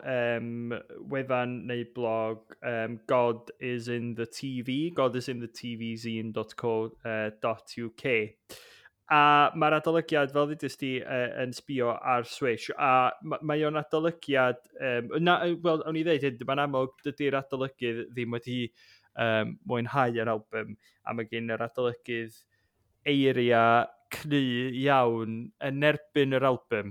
wefan neu blog God is in the TV, godisinthetvzine.co.uk. A mae'r adolygiad, fel ddudest di, yn sbio ar Swish, a mae o'n adolygiad, na, wel, o'n i ddeud hyn, mae'n amlwg dydy'r adolygydd ddim wedi mwynhau yr album, a mae gen yr adolygydd eiriau cry iawn yn erbyn yr album.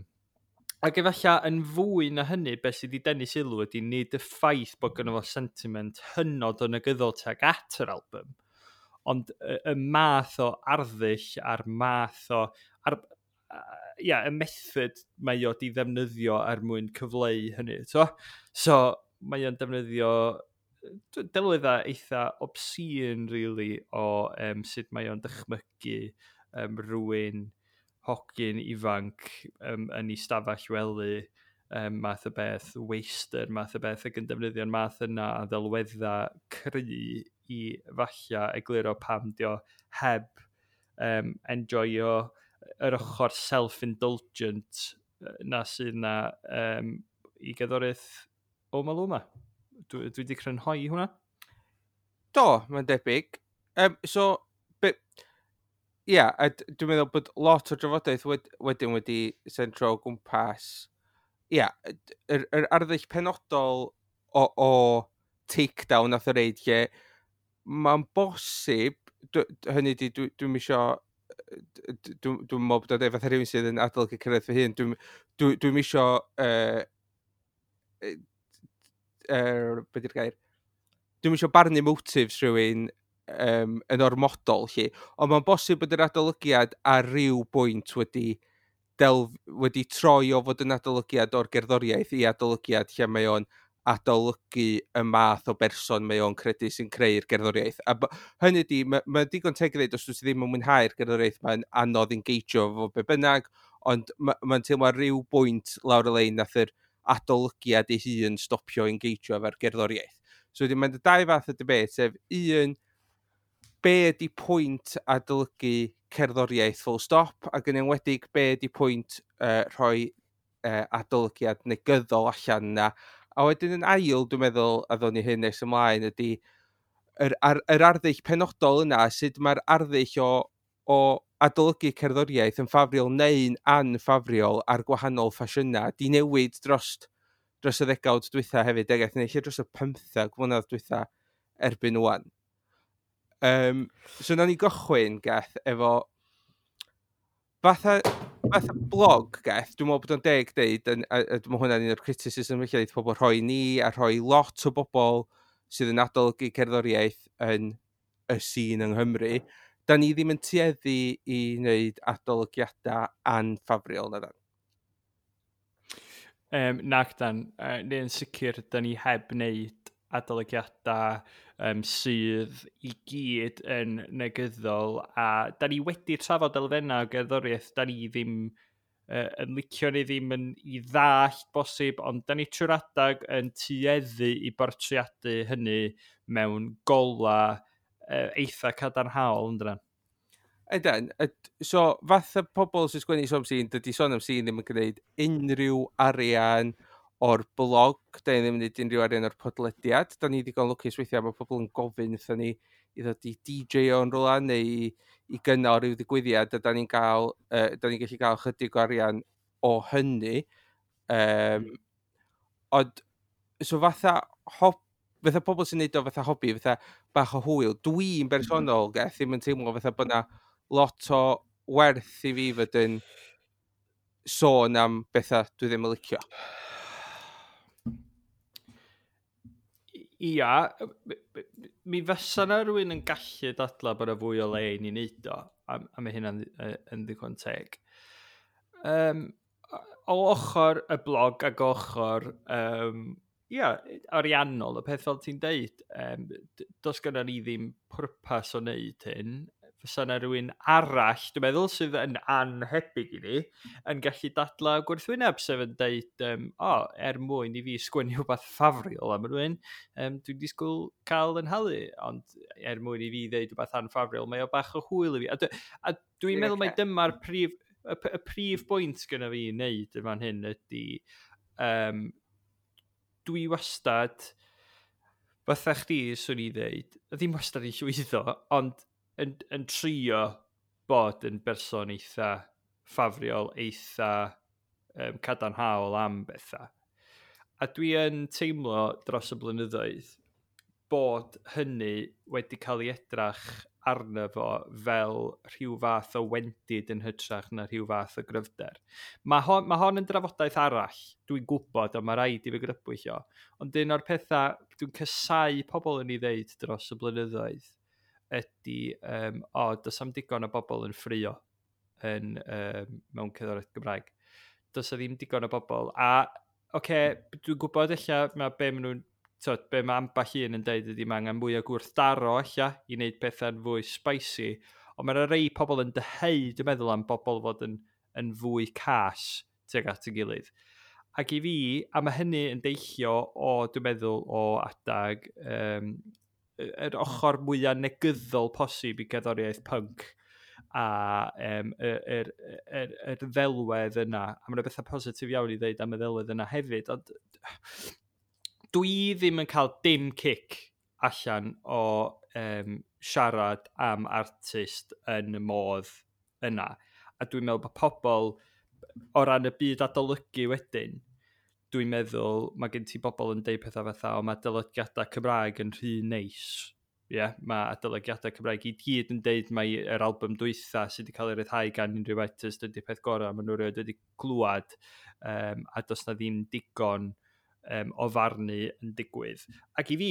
Ac efallai yn fwy na hynny, beth sydd wedi denu sylw ydy nid y ffaith bod gynno fo sentiment hynod o negyddol tuag at yr album, ond y math o arddull a'r math o... Ar, ia, y method mae o di ddefnyddio er mwyn cyfleu hynny. So mae o'n defnyddio delweddau eitha obscene, really, o sut mae o'n dychmygu rhywun hogyn ifanc yn ei stafell wely, math o beth, waster, math o beth, ac yn defnyddio'r math yna a ddelweddau cry i falla egluro pam dio heb enjoyo yr ochr self-indulgent na sydd na i gerddoriaeth Omaloma. Dwi wedi crynhoi hwnna. Do, mae'n debyg. So, ia, a dwi'n meddwl bod lot o drafodaeth wedyn wedi sentro o gwmpas, ia, yr arddull penodol o takedown nath o reid lle mae'n bosib, hynny di, dwi'n isio, dwi'n meddwl bod o'n deud fatha rhywun sydd yn adolygu cyrraedd fy hun, dwi'n isio, be di'r gair? Dwi'n isio barnu motives rhywun yn ormodol, lle. Ond mae'n bosib bod yr adolygiad ar ryw bwynt wedi troi o fod yn adolygiad o'r gerddoriaeth i adolygiad lle mae o'n adolygu y math o berson mae o'n credu sy'n creu'r gerddoriaeth. A hynny di, mae digon teg i ddweud os dwi ddim yn mwynhau'r gerddoriaeth, mae'n anodd engageio fo be bynnag, ond mae'n teimlo ar ryw bwynt lawr y lein nath yr adolygiad ei hun stopio engageio efo'r gerddoriaeth. So wedyn mae'n dau fath o debate, sef un, be ydy pwynt adolygu cerddoriaeth full stop, ac yn enwedig be ydy pwynt rhoi adolygiad negyddol allan yna. A wedyn yn ail, dwi'n meddwl, a ddown ni hyn nes ymlaen, ydy yr arddull penodol yna, sut mae'r arddull o adolygu cerddoriaeth yn ffafriol neu'n anffafriol ar gwahanol ffasiynau, di newid dros y ddegawd dwytha hefyd, ag neu lle dros y 15 mlynedd dwytha erbyn ŵan. So nawn ni gychwyn, Geth, efo fatha blog, Geth, dwi'n meddwl bod o'n deg deud, a dwi'n meddwl hwnna'n un o'r criticism felly, deud pobl rhoi ni a rhoi lot o bobl sydd yn adolygu cerddoriaeth yn y sîn yng Nghymru, da ni ddim yn tueddu i wneud adolygiadau anffafriol, na dan? Nac dan, neu'n sicr, da ni heb wneud adolygiadau sydd i gyd yn negyddol, a da ni wedi trafod elfennau o gerddoriaeth da ni ddim yn licio neu ddim yn i ddallt bosib, ond da ni trwy'r adag yn tueddu i bortreadu hynny mewn gola eitha cadarnhaol, yn dyna? Ydan, so fatha pobl sy'n sgwennu Sôn am Sîn, dydy Sôn am Sîn ddim yn gwneud unrhyw arian o'r blog, da ni ddim yn gwneud unrhyw arian o'r podlediad. Da ni ddigon lwcus weithiau, mae pobl yn gofyn wrthon ni i ddod i DJ o'n rhywle neu i gynnal rhyw ddigwyddiad, a da ni'n gallu cael chydig o arian o hynny. Ond, so fatha pobl sy'n neud o fatha hobi, fatha bach o hwyl, dwi'n bersonol, Geth, ddim yn teimlo fatha bod 'na lot o werth i fi fod yn sôn am bethau dwi ddim yn licio. Ia, mi fysa 'na rhywun yn gallu dadla bod 'na fwy o le i ni wneud o, a mae hynna'n yn ddigon teg. O ochr y blog ac ochr ariannol, y peth fel ti'n deud, does gynnon ni ddim pwrpas o wneud hyn. Fysa 'na rhywun arall, dwi'n meddwl, sydd yn anhebyg i ni, yn gallu dadla gwrthwyneb, sef yn deud, o, er mwyn i fi sgwennu rhywbeth ffafriol am rhywun, dwi'n disgwyl cael yn halu, ond er mwyn i fi ddeud rhywbeth anffafriol, mae o bach o hwyl i fi. A dwi'n meddwl mai dyma'r prif bwynt gynna fi i wneud yn fan hyn ydy, dwi wastad, fatha chdi, swn i ddeud, ddim wastad i llwyddo, ond yn trio bod yn berson eitha ffafriol, eitha cadarnhaol am bethau. A dwi yn teimlo dros y blynyddoedd bod hynny wedi cael ei edrach arno fo fel rhyw fath o wendid yn hytrach na rhyw fath o gryfder. Mae hon yn drafodaeth arall, dwi'n gwybod, a mae rhaid i fi grybwyll o. Ond un o'r pethau dwi'n casáu pobl yn ei ddeud dros y blynyddoedd ydy, o, does am digon o bobl yn ffrio mewn cerddoriaeth Gymraeg. Does 'na ddim digon o bobl. A, oce, dwi'n gwybod ella mae be maen nhw'n, tyd, be mae ambell un yn deud ydy mae angen mwy o gwrthdaro ella i wneud pethau'n fwy spicy, ond mae 'na rei pobl yn dyheu, dwi'n meddwl, am bobl fod yn fwy cas tuag at ei gilydd. Ac i fi, a mae hynny yn deillio o, dwi'n meddwl, o adag yr ochr mwyaf negyddol posib i gerddoriaeth punk a yr ddelwedd yna. A mae 'na bethau positif iawn i ddeud am y ddelwedd yna hefyd, ond dwi ddim yn cael dim cic allan o siarad am artist yn y modd yna. A dwi'n meddwl bod pobl, o ran y byd adolygu wedyn, dwi'n meddwl mae gen ti bobl yn deud pethau fatha, o, mae adolygiadau Cymraeg yn rhy neis. Ie, yeah, mae adolygiadau Cymraeg i gyd yn deud mai yr album dwytha sydd wedi cael ei ryddhau gan unrhyw artist ydy'r peth gorau maen nhw erioed wedi glwad, a does na ddim digon o farnu yn digwydd. Ac i fi,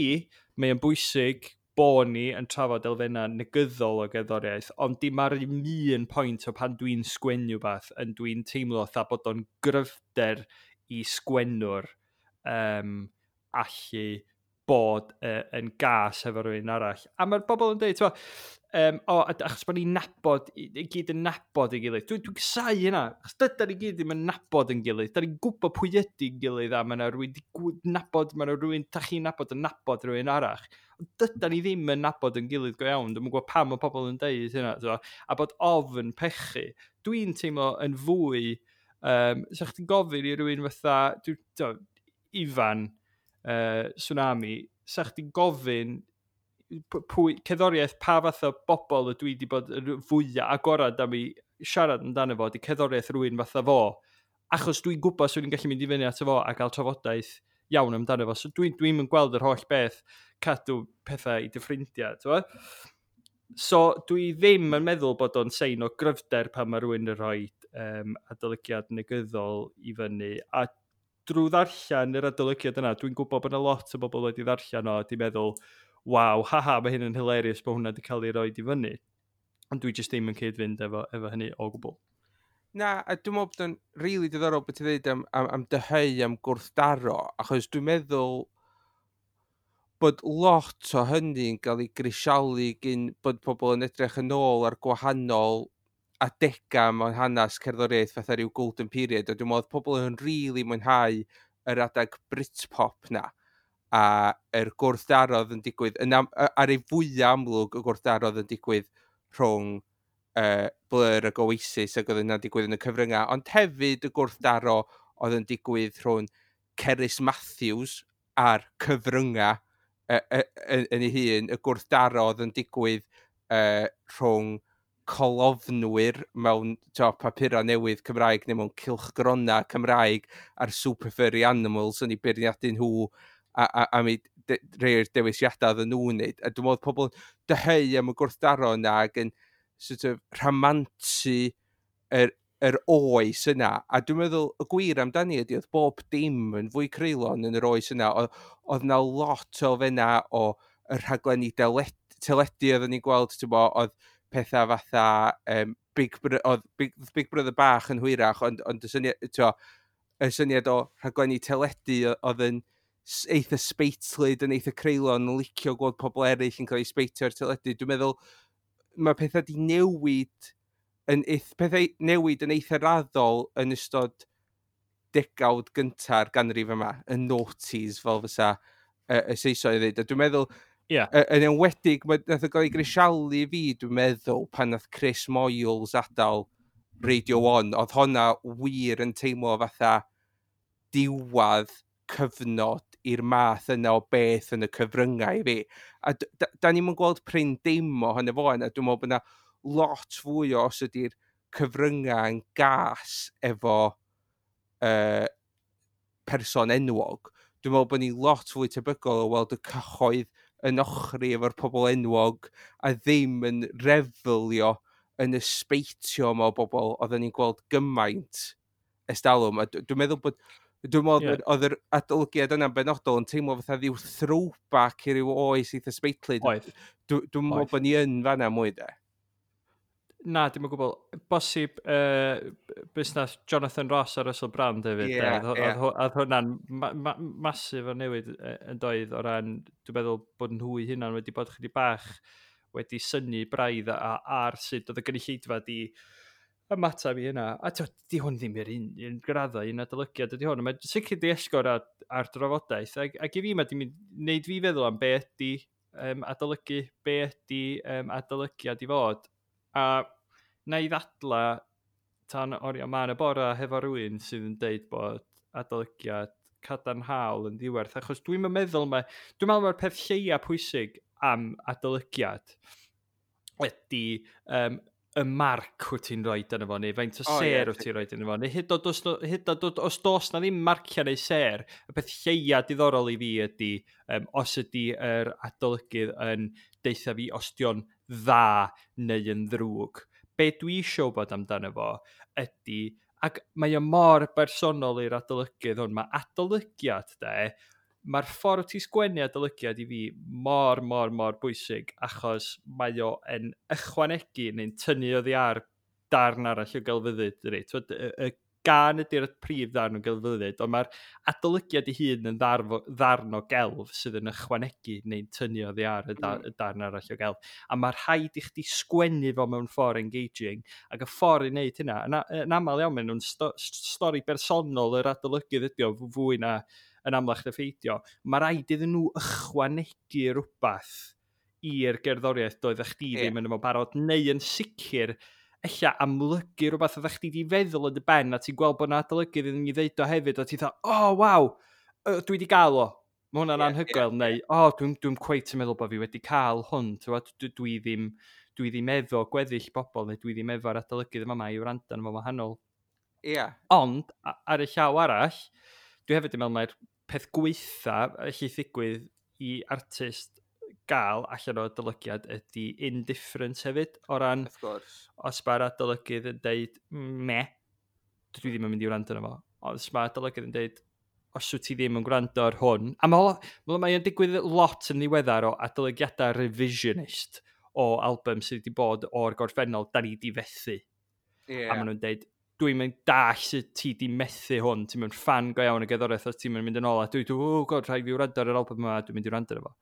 mae o'n bwysig bo ni yn trafod elfennau negyddol o gerddoriaeth, ond dim ar un pwynt o pan dwi'n sgwennu beth, yn dwi'n teimlo fatha bod o'n gryfder i sgwennwr allu bod yn gas efo rhywun arall. A mae'r bobl yn dweud, t'mo, o, achos bod ni'n nabod, i gyd yn nabod ei gilydd. Dwi'n casáu hynna, achos dydan ni gyd ddim yn nabod yn gilydd. Da ni'n gwybod pwy ydy'n gilydd, a mae yna rhywun di nabod, mae yna rhywun, da chi'n nabod yn nabod rhywun arall. Ond dydan ni ddim yn nabod yn gilydd go iawn. Dwi'm yn gwybod pam mae pobl yn deud hynna, t'mo, a bod ofn pechu. Dwi'n teimlo yn fwy, sa chdi'n gofyn i rhywun fatha, dwi, t'mo, Ifan, Swnami, sa chdi'n gofyn pwy, cerddoriaeth, pa fath o bobl ydw i wedi bod yn fwyaf agorad am i siarad amdano fo, di cerddoriaeth rhywun fatha fo, achos dwi'n gwybod swn i'n gallu mynd i fyny ato fo a gael trafodaeth iawn amdano fo. So dwi'n yn gweld yr holl beth cadw pethau i dy ffrindiau, t'mo'? So dwi ddim yn meddwl bod o'n sein o gryfder pan mae rhywun yn rhoi adolygiad negyddol i fyny. A drwy ddarllen yr adolygiad yna, dwi'n gwybod bod yna lot o bobl wedi ddarllen o a di meddwl, waw, haha, mae hyn yn hilarious bod hwnna wedi cael ei roid i fyny. Ond dwi jyst ddim yn cyd-fynd efo hynny o gwbl. Na, a dwi'n meddwl bod o'n rili diddorol beth ti'n dweud am dyheu am gwrthdaro, achos dwi'n meddwl bod lot o hynny'n cael ei grisialu gyn bod pobl yn edrych yn ôl ar gwahanol adegau mewn hanes cerddoriaeth fatha rhyw golden period, a dwi'n meddwl pobl yn rili mwynhau yr adeg Britpop na, a yr gwrthdaro oedd yn digwydd, yn ar ei fwyaf amlwg y gwrthdaro oedd yn digwydd rhwng Blur ac Oasis, ac oedd yna'n digwydd yn y cyfryngau, ond hefyd y gwrthdaro oedd yn digwydd rhwng Cerys Matthews a'r cyfryngau yn ei hun, y gwrthdaro oedd yn digwydd rhwng colofnwyr mewn papurau newydd Cymraeg neu mewn cylchgronau Cymraeg a'r Super Furry Animals yn ei beirniadu nhw a mi rhai o'r dewisiadau oedden nhw'n wneud. A dwi'n meddwl pobl dyheu am y gwrthdaro yna ac yn sort of rhamantu yr oes yna. A dwi'n meddwl y gwir amdani ydy oedd bob dim yn fwy creulon yn yr oes yna. Oedd na lot o elfennau o y rhaglenni teledu oedden ni'n gweld, ti'n bo, oedd pethau fatha, oedd Big Brother bach yn hwyrach, ond y syniad o rhaglenni teledu oedd yn eitha sbeitlyd, yn eitha creulon, yn licio gweld pobl eraill yn cael eu sbeitio ar teledu. Dwi'n meddwl mae pethau di newid yn pethau newid yn eitha raddol yn ystod degawd gynta'r ganrif yma, y noughties, fel fysa y Saeson i ddweud. A dwi'n meddwl, yn enwedig, nath o gael ei grisialu fi, dwi'n meddwl, pan nath Chris Moyles adael Radio 1, oedd honna wir yn teimlo fatha diwadd cyfnod i'r math yna o beth yn y cyfryngau i fi. A da ni'm yn gweld prin dim ohono fo yna. Dwi'n meddwl bod yna lot fwy o os ydy'r cyfryngau yn gas efo person enwog. Dwi'n meddwl bod ni lot fwy tebygol o weld y cyhoedd yn ochri efo'r pobl enwog a ddim yn refelio yn y sbeitio yma o bobl oedden ni'n gweld gymaint ers talwm. A dwi'n meddwl bod, dwi'n meddwl oedd yr adolygiad yna'n benodol yn teimlo fatha ryw throwback i ryw oes eitha sbeitlyd. Dwi'n meddwl bod ni yn fanna mwy de. Na, dim o gwbl. Bosib busnes Jonathan Ross a Russell Brand hefyd, de. Oedd hwnna'n masif o newid yn doedd o ran, dwi'n meddwl bod nhw eu hunan wedi bod chydig bach wedi synnu braidd ar sut oedd y gynulleidfa di ymateb i hynna. A di hwn ddim i'r un graddau, un adolygiad ydi hwn. Mae'n sicr di esgor ar drafodaeth. Ac i fi, mae di mynd, wneud fi feddwl am be ydi adolygu, be ydi adolygiad i fod. A na i ddadla tan oriau mân y bora hefo rhywun sydd yn deud bod adolygiad cadarnhaol yn ddiwerth, achos dwi'n meddwl mae, dwi'n meddwl mae'r peth lleia pwysig am adolygiad ydy y marc wyt ti'n rhoi yno fo, neu faint o ser wyt ti'n rhoi yno fo, neu hyd oed os, hyd oed os does na ddim marciau neu ser, y peth lleia diddorol i fi ydy os ydy yr adolygydd yn deutha fi os dio'n dda neu yn ddrwg. Be dwi eisiau bod amdano fo ydy, ac mae o mor bersonol i'r adolygydd hwn, mae adolygiad de, mae'r ffordd ti'n sgwennu adolygiad i fi mor, mor, mor bwysig, achos mae o yn ychwanegu neu'n tynnu oddi ar darn arall o gelfyddyd. Dydi? T'wod, y gân ydy'r prif ddarn o gelfyddyd, ond mae'r adolygiad ei hun yn ddarn o gelf sydd yn ychwanegu neu'n tynnu oddi ar y darn arall o gelf. A mae rhaid i chdi sgwennu fo mewn ffordd engaging, ac y ffordd i wneud hynna, yn aml iawn, maen nhw'n stori bersonol yr adolygydd ydi o, fwy na yn amlach na pheidio. Mae rhaid iddyn nhw ychwanegu rhywbeth i'r gerddoriaeth doeddech chdi ddim yn efo barod, neu yn sicr ella amlygu rhywbeth oeddech chdi di feddwl yn dy ben, a ti'n gweld bod 'na adolygydd iddyn ni ddeud o hefyd, a ti'n dweud, "Oh, waw, dwi wedi gael o, mae hwnna'n anhygoel," neu, "Oh, dwi'n cweit yn meddwl bod fi wedi cael hwn, t'wod, dwi ddim efo gweddill bobl, neu dwi ddim efo'r adolygydd yma i wrando arno fo wahanol." Ond, ar y llaw arall, dwi hefyd yn meddwl mai'r peth gweitha allith ddigwydd i artist gael allan o adolygiad ydy indifference hefyd, o ran Wrth gwrs. os mae'r adolygydd yn deud, "Meh, dwi ddim yn mynd i wrando arno fo." Os mae'r adolygydd yn deud, "Os wyt ti ddim yn gwrando ar hwn," a mae o'n digwydd lot yn ddiweddar o adolygiadau revisionist o album sydd wedi bod o'r gorffennol, da ni di fethu. A maen nhw'n deud, "Dwi'n mynd dall sut ti di methu hwn, ti'n mynd ffan go iawn y gerddoriaeth os ti'n mynd yn ôl," a dwi, "Oh God, rhaid fi wrando ar yr album yma, dwi'n mynd i wrando ar fo."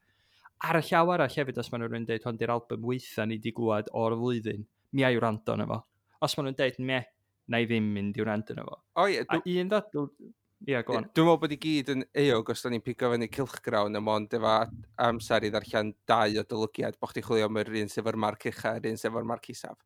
Ar y llaw arall hefyd, os maen nhw'n deud, "Hwn di'r album weitha ni di glwad o'r flwyddyn, mi ai wrando arno fo." Os maen nhw'n deud, "Meh," na i ddim mynd i wrando arno fo. O ie, A un ddadl. Ie, go on. Dwi'n meddwl bod i gyd yn euog os da ni'n pigo fyny cylchgrawn a mond efo amser i ddarllen dau adolygiad, bo chdi chwilio am yr un sydd efo'r marc ucha a'r un sydd efo'r marc isaf.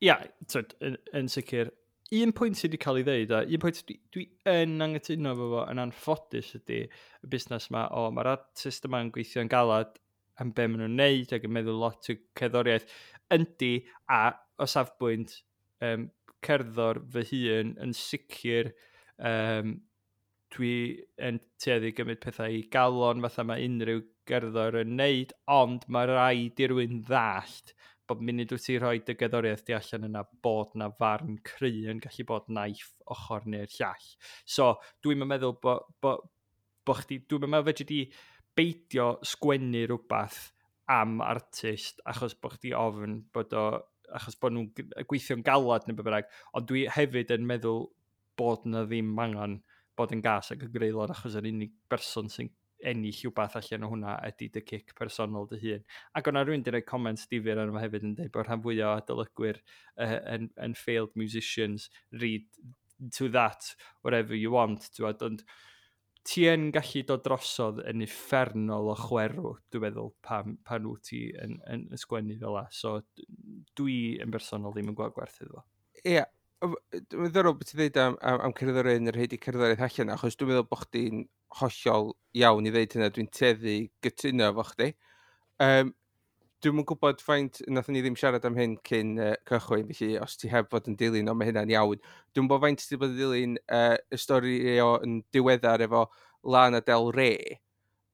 Ia, twyd, yn sicr. Un pwynt sydd wedi cael ei ddeud, a un pwynt dwi yn anghytuno efo fo yn anffodus ydy y busnes yma, o, mae'r artist yma'n gweithio'n galad am be maen nhw'n neud ac yn meddwl lot o cerddoriaeth. Yndi, a o safbwynt cerddor fy hun yn sicr, dwi yn tueddu gymryd pethau i galon fatha mae unrhyw gerddor yn neud, ond mae rhaid i rywun ddallt bod munud wyt ti rhoi dy gerddoriaeth di allan yna bod na farn cry yn gallu bod naill ochr neu'r llall. So, dwi'n meddwl bo chdi, dwi'n meddwl fedri di beidio sgwennu rhywbeth am artist achos bo chdi ofn bod o, achos bod nhw'n gweithio'n galad neu be bynnag, ond dwi hefyd yn meddwl bod na ddim angen bod yn gas ac yn greulon achos yr unig berson sy'n ennill rhywbeth allan o hwnna ydy dy cic personol dy hun. Ac o'na rhywun wedi rhoi comments difyr arno fo hefyd yn dweud bod rhan fwyaf o adolygwyr yn failed musicians, read to that whatever you want, t'wod, ond ti yn gallu dod drosodd yn uffernol o chwerw, dwi'n meddwl, pan wyt ti yn sgwennu fel la. So, dwi yn bersonol ddim yn gweld gwerth iddo fo. Ie, dwi'n ddiddorol beth ti'n dweud am cerddoriaeth yn rhaid i cerddoriaeth allan, achos dwi'n meddwl bod chdi'n hollol iawn i ddeud hynna, dwi'n tueddu gytuno efo chdi. Dwi'm yn gwybod faint, nathon ni ddim siarad am hyn cyn cychwyn, felly os ti heb fod yn dilyn, ond mae hynna'n iawn. Dwi'n gwybod faint ti wedi bod yn dilyn y stori o yn diweddar efo Lana Del Rey,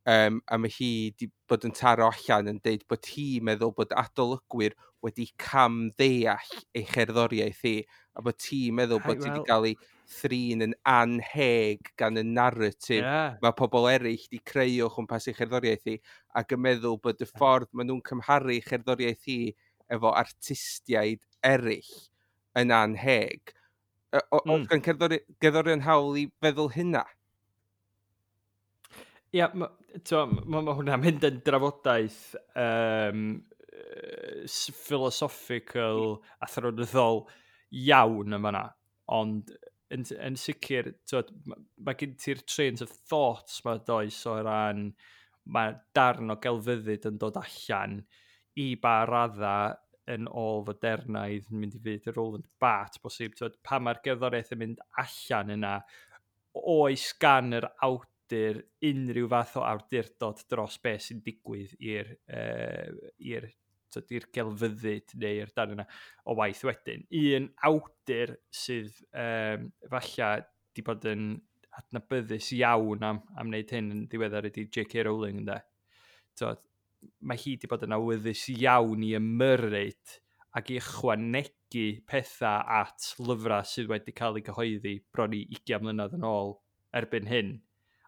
a mae hi wedi bod yn taro allan yn deud bod hi'n meddwl bod adolygwyr wedi cam ddeall ei cherddoriaeth hi, a bod ti'n meddwl bod ti wedi cael ei thrin yn anheg gan y narrative mae pobl eraill wedi creu o chwmpas ei cherddoriaeth hi, ac yn meddwl bod y ffordd maen nhw'n cymharu cherddoriaeth hi efo artistiaid eraill yn anheg. Oes gan gerddorion hawl i feddwl hynna? Ia, ma, ma hwnna'n mynd yn drafodaeth philosophical, athronyddol iawn yma na. Ond yn sicr, t'wod, ma gen ti'r trains of thoughts ma does o ran mae darn o gelfyddyd yn dod allan i ba radda yn ôl fodernaidd yn mynd i fyd y Roland Barthes bosib. T'wod, pan mae'r gerddoriaeth yn mynd allan yna, oes gan yr awdur unrhyw fath o awdurdod dros beth sy'n digwydd i'r i'r gelfyddyd neu'r darn yna o waith wedyn. Un awdur sydd falle di bod yn adnabyddus iawn am wneud hyn yn ddiweddar ydy J.K. Rowling, ynde. Tod, mae hi di bod yn awyddus iawn i ymyrryd ac i ychwanegu pethau at lyfrau sydd wedi cael eu cyhoeddi bron i 20 mlynedd yn ôl erbyn hyn.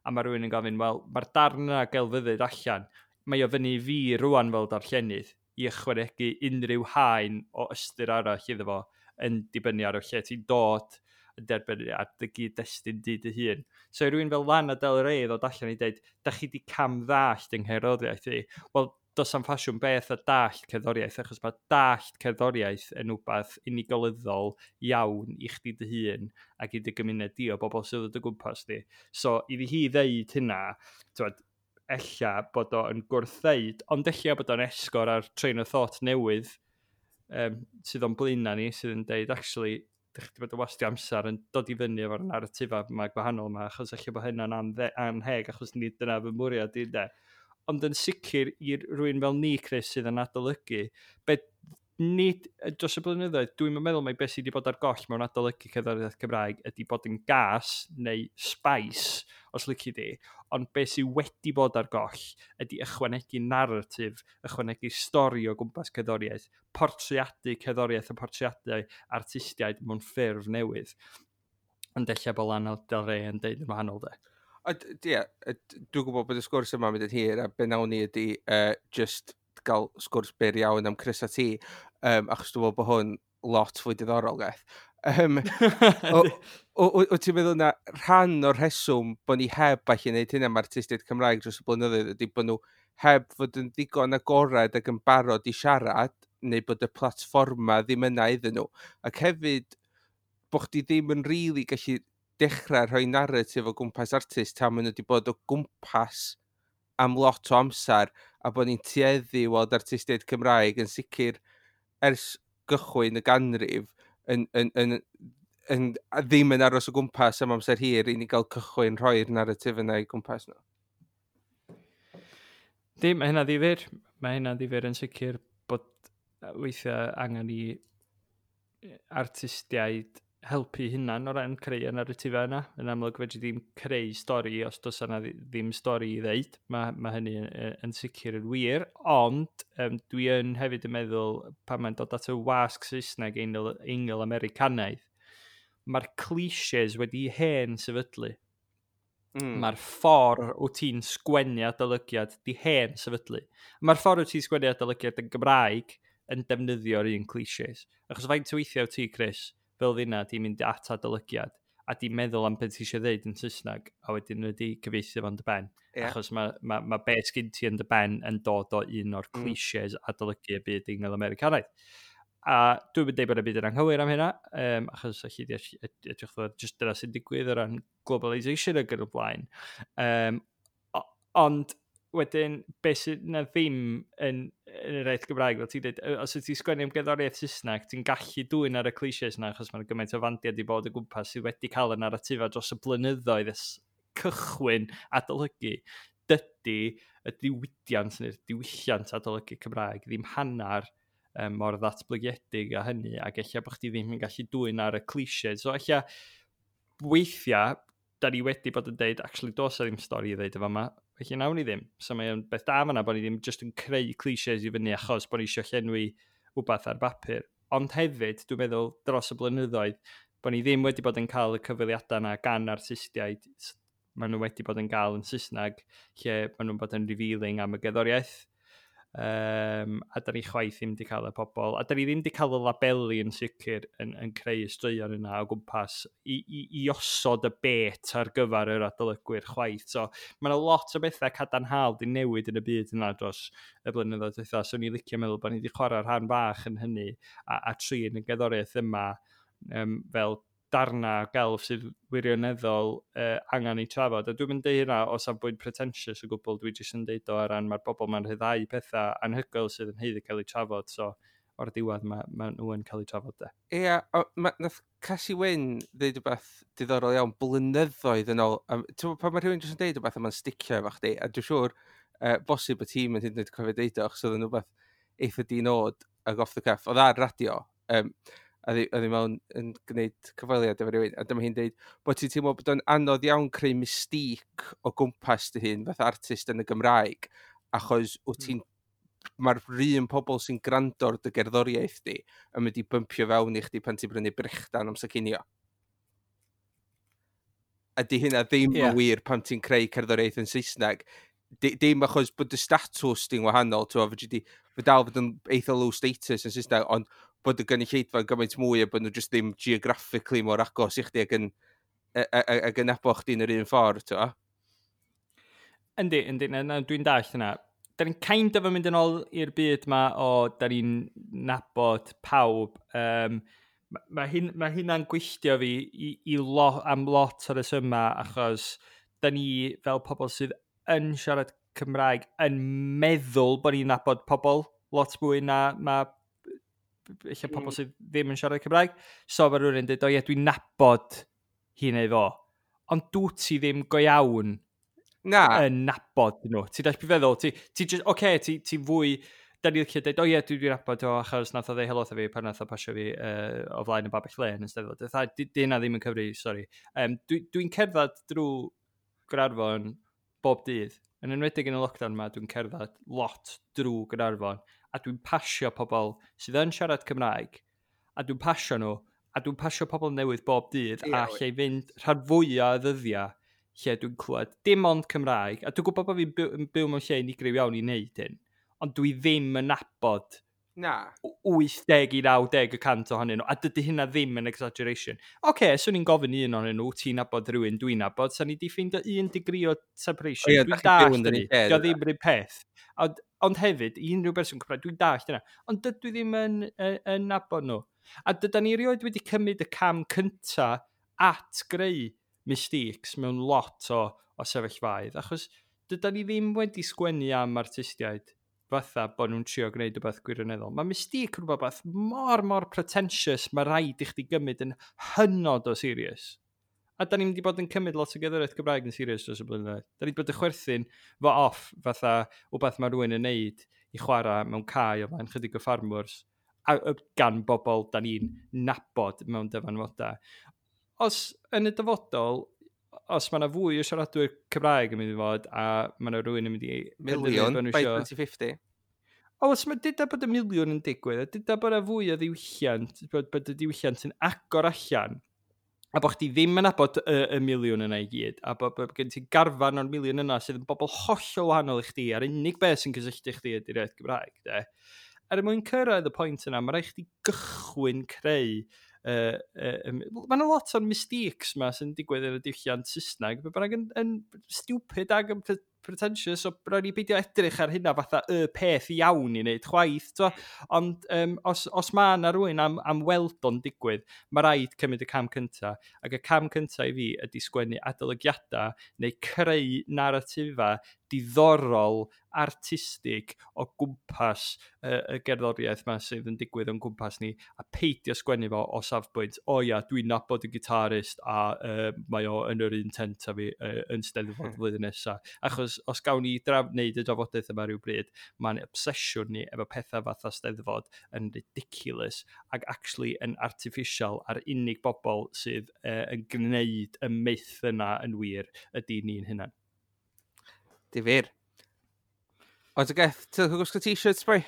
A mae rhywun yn gofyn, wel, mae'r darn yna gelfyddyd allan, mae o fyny i fi rwan fel darllenydd i ychwanegu unrhyw haen o ystyr arall iddo fo yn dibynnu ar o lle ti'n dod, yn derbyn ar dy gyd-destun di dy hun. So i rywun fel Lana Del Rey ddod allan i dweud, da chi di cam ddallt yng ngherddoriaeth i. Wel, does am ffasiwn beth a dallt cerddoriaeth, achos mae dallt cerddoriaeth yn wbath unigolyddol iawn i chdi dy hun ac i dy gymuned di o bobl sydd o dy gwmpas di. So, iddi hi ddeud hynna, twad, ella bod o'n gwrthdeud, ond ella bod o'n esgor ar train of thought newydd sydd o'n blaenau ni, sydd yn deud, actually, dych chi wedi bod yn wastio amser yn dod i fyny efo'r narrativa yma gwahanol yma, achos ella bod hynna'n anheg, achos nid dyna fy mwriad i, de. Ond yn sicr i rywun fel ni, Chris, sydd yn adolygu, be nid dros y blynyddoedd, dwi'n meddwl mai beth sydd wedi bod ar goll mewn adolygu cerddoriaeth Cymraeg ydy bod yn gas neu spice, os lici di, ond beth sydd wedi bod ar goll ydy ychwanegu narratif, ychwanegu stori o gwmpas cerddoriaeth, portreadu cerddoriaeth a portreadu artistiaid mewn ffurf newydd. Ond ella bod Lana Del Rey yn deud yn wahanol, de. Ie, dwi'n gwybod bod y sgwrs yma'n mynd yn hir, a be nawn ni ydy just gael sgwrs byr iawn am Chris a Ti, achos dwi'n meddwl bod hwn lot fwy diddorol, gaeth. Wyt ti'n meddwl na rhan o'r rheswm bod ni heb allu gwneud hynna am artistiaid Cymraeg dros y blynyddoedd ydy bod nhw heb fod yn ddigon agored ac yn barod i siarad, neu bod y platfforma ddim yna iddyn nhw. Ac hefyd, bod chdi ddim yn rili gallu dechrau rhoi narratif o gwmpas artist tan maen nhw wedi bod o gwmpas am lot o amser, a bod ni'n tueddu i weld artistiaid Cymraeg yn sicr ers gychwyn y ganrif yn ddim yn aros o gwmpas am amser hir i ni gael cychwyn rhoi'r narratif yna i gwmpas nhw. Dim, mae hynna ddifyr. Mae hynna ddifyr yn sicr bod weithiau angen i artistiaid helpu hunan o ran creu y narratifau yna. Yn amlwg fedri ddim creu stori os does yna ddim stori i ddeud. Mae hynny yn sicr yn wir, ond dwi yn hefyd yn meddwl pan mae'n dod at y wasg Saesneg Eingl-Americanaidd, mae'r clichés wedi hen sefydlu. Mae'r ffordd wyt ti'n sgwennu adolygiad di hen sefydlu. Mae'r ffordd wyt ti'n sgwennu adolygiad yn Gymraeg yn defnyddio'r un clichés. Achos faint o weithiau wyt ti, Chris, fel fyna, di mynd at adolygiad a di meddwl am beth ti eisiau ddeud yn Saesneg, a wedyn wedi cyfieithu fo'n dy ben. Achos mae beth sgyn ti yn dy ben yn dod o un o'r clichés adolygu y byd Eingl-Americanaidd. A dwi'n mynd deud bod y byd yn anghywir am hynna, achos allu di edrych ddod jyst dyna sy'n digwydd o ran globalisation ag yn y blaen. Ond wedyn, beth sydd na ddim yn yr iaith Gymraeg, fel ti'n dweud, os wyt ti'n sgwennu am gerddoriaeth Saesneg, ti'n gallu dwyn ar y clichés yna, achos mae'n gymaint o fandiau di bod o gwmpas sydd wedi cael y narrativa dros y blynyddoedd ers cychwyn adolygu. Dydy y diwydiant neu'r diwylliant adolygu Cymraeg ddim hanner mor ddatblygiedig a hynny, ac ella bod chdi ddim yn gallu dwyn ar y clichés. So ella weithiau, da ni wedi bod yn deud, actually, does 'na ddim stori i ddeud efo yma, felly nawn ni ddim. So mae'n beth da fan'na bod ni ddim just yn creu clichés i fyny achos bod ni eisiau llenwi wbath ar bapur. Ond hefyd, dwi'n meddwl, dros y blynyddoedd, bod ni ddim wedi bod yn cael y cyfweliadau yna gan artistiaid maen nhw wedi bod yn gael yn Saesneg, lle maen nhw'n bod yn revealing am y gerddoriaeth. A da ni chwaith ddim wedi cael y pobol, a da ni ddim wedi cael y labeli yn sicr yn creu y straeon yna o gwmpas i osod y bait ar gyfer yr adolygwyr chwaith. So mae yna lot o bethau cadarnhaol di newid yn y byd yna dros y blynyddoedd dwytha. So ni'n licio meddwl bod ni wedi chwarae rhan fach yn hynny a trin y gerddoriaeth yma fel darna gelf sydd wirioneddol angen ei trafod. A dwi'n mynd deud hynna o safbwynt pretentious o gwbl, dwi jyst yn deud o ar ran mae'r bobl ma'n rhyddhau pethau anhygoel sydd yn haeddu cael eu trafod, so O'r diwedd ma nhw yn cael eu trafod, de. Ie, nath Casi Wyn ddeud rhywbeth diddorol iawn blynyddoedd yn ôl. Ti'n gwbod pan mae rhywun jyst yn deud rhywbeth a mae'n sticio efo chdi, a dwi'n siŵr bosib y tîm yn hyd yn oed cofio deud o, achos oedd yn rhywbeth eitha di-nod ag off the cuff. Oedd ar radio, a oedd hi mewn yn gwneud cyfweliad efo rhywun, a dyma hi'n deud bod ti'n teimlo bod o'n anodd iawn creu mystique o gwmpas dy hun fatha artist yn y Gymraeg, achos wyt ti'n mae'r un pobl sy'n gwrando ar dy gerddoriaeth di yn mynd i bympio fewn i chdi pan ti'n brynu brechdan amser cinio. A di hynna ddim yn wir pan ti'n creu cerddoriaeth yn Saesneg. Dim achos bod y statws di'n wahanol, ti'n fedri di, fe dal fod yn eitha low status yn Saesneg, ond bod y gynulleidfa yn gymaint mwy a bod nhw just ddim geographically mor agos i chdi ac yn nabo chdi yn yr un ffordd, ti'n gwbo? Yndi, na, na, dwi'n dallt yna. Da ni'n kind of yn mynd yn ôl i'r byd ma o da ni'n nabod pawb. Ma hynna'n gwylltio fi am lot o'r rhesymau, achos da ni fel pobl sydd yn siarad Cymraeg yn meddwl bod ni'n nabod pobl lot mwy na ma eich pobl sydd ddim yn siarad Cymraeg. So mae rhywun yn dweud, "O ie, dwi'n nabod hi neu fo." Ond dwi ti ddim go iawn Na, yn nabod nhw. Ti'n dall beth feddwl? Ti just, oce, okay, ti fwy. Da ni'n licio dweud, "O ie, dwi'n nabod o achos nath o ddeud helo wrtho fi pan nath o pasio fi o flaen y babell lên yn Steddfod." Fatha, di hynna ddim yn cyfri, sori. Dwi'n cerdded drwy Gaernarfon bob dydd. Yn enwedig yn y lockdown yma, dwi'n cerdded lot drwy Gaernarfon. A dwi'n pasio pobl sydd yn siarad Cymraeg. A dwi'n pasio nhw. A dwi'n pasio pobl newydd bob dydd. A lle i fynd rhan fwyaf o ddyddiau lle dwi'n clywed dim ond Cymraeg. A dwi'n gwybod bod fi'n byw mewn lle unigryw iawn i wneud hyn. Ond dwi ddim yn nabod Na. 80 i 90% ohonyn nhw, a dydy hynna ddim yn exaggeration. Oce, okay, swn i'n gofyn i un ohonyn nhw, "Ti'n nabod rhywun dwi'n nabod?" Sa'n ni di ffeindio un degree o separation. O ie, Dwi'n dach chi'n byw dallt yn yr hynny. un lle, Dio dyda? ddim yr un peth. Ond hefyd, i unrhyw berson Cymraeg, dwi'n dallt hynna. Ond dydw i ddim yn nabod nhw. A dyda ni erioed wedi cymryd y cam cynta at greu mistakes mewn lot o sefyllfaoedd, achos dyda ni ddim wedi sgwennu am artistiaid fatha bod nhw'n trio gwneud rhywbeth gwirioneddol. Mae mystique yn rhywbeth mor, mor pretentious, mae rhaid i chdi gymryd yn hynod o serious. A da ni'n mynd i bod yn cymryd lot o gerddoriaeth Gymraeg yn serious dros y blynyddoedd. Da ni wedi bod yn chwerthin fo off fatha wbeth mae rhywun yn neud i chwarae mewn cae o flaen chydig o ffarmwrs a gan bobl da ni'n nabod mewn dyfanfodau. Os yn y dyfodol, os mae yna fwy o siaradwyr Cymraeg yn mynd i fod, a mae yna rhywun yn mynd i Miliwn penderfynu bod nhw by 2050. O, os mae dyda bod y miliwn yn digwydd, a dyda bod yna fwy o ddiwylliant, bod y diwylliant yn agor allan, a bod chdi ddim yn nabod y miliwn yna i gyd, a bod gen ti garfan o'r miliwn yna sydd yn bobl hollol wahanol i chdi, a'r unig beth sy'n cysylltu chdi ydy'r iaith Gymraeg, de. Er mwyn cyrraedd y pwynt yna, mae rhaid chdi gychwyn creu. Mae yna lot o'r mistakes ma sy'n digwydd yn y diwylliant Saesneg, be bynnag yn stupid ag yn pretentious, so rhaid ni beidio edrych ar hynna fatha y peth iawn i wneud chwaith, t'mo'? Ond os mae yna rhywun am weld o'n digwydd, mae rhaid cymryd y cam cynta. Ac y cam cynta i fi ydy sgwennu adolygiadau neu creu narratifa diddorol, artistig o gwmpas y gerddoriaeth ma sydd yn digwydd o'n gwmpas ni, a peidio sgwennu fo o safbwynt, "O ia, dwi'n nabod y gitarist a mae o yn yr un tent a fi yn Steddfod flwyddyn nesaf." Achos os gawn ni wneud y drafodaeth yma rhyw bryd, mae'n obsesiwn ni efo pethau fatha Steddfod yn ridiculous ac actually yn artificial, a'r unig bobl sydd yn gwneud y myth yna yn wir ydy ni'n hunan. Difyr. Ond y geth, ti'n gwisgo t-shirts, boi?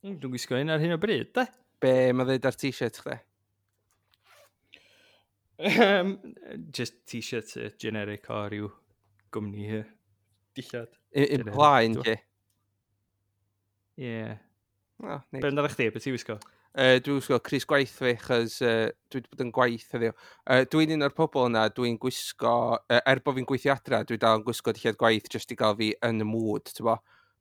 Dwi'n gwisgo un ar hyn o bryd, de? Be mae dweud ar t-shirt chdi? Just t-shirt generic o ryw gwmni dillad. Un plaen, Generic, ti? Ie. Yeah. Oh, neis. Be amdano chdi? Be ti'n wisgo? Dwi'n gwisgo crys gwaith fi, chos dwi wedi bod yn gwaith heddiw. Dwi'n un o'r pobl yna, dwi'n gwisgo, er bod fi'n gweithio adra, dwi dal yn gwisgo dillad gwaith jyst i gael fi yn y mood, ti'n bo?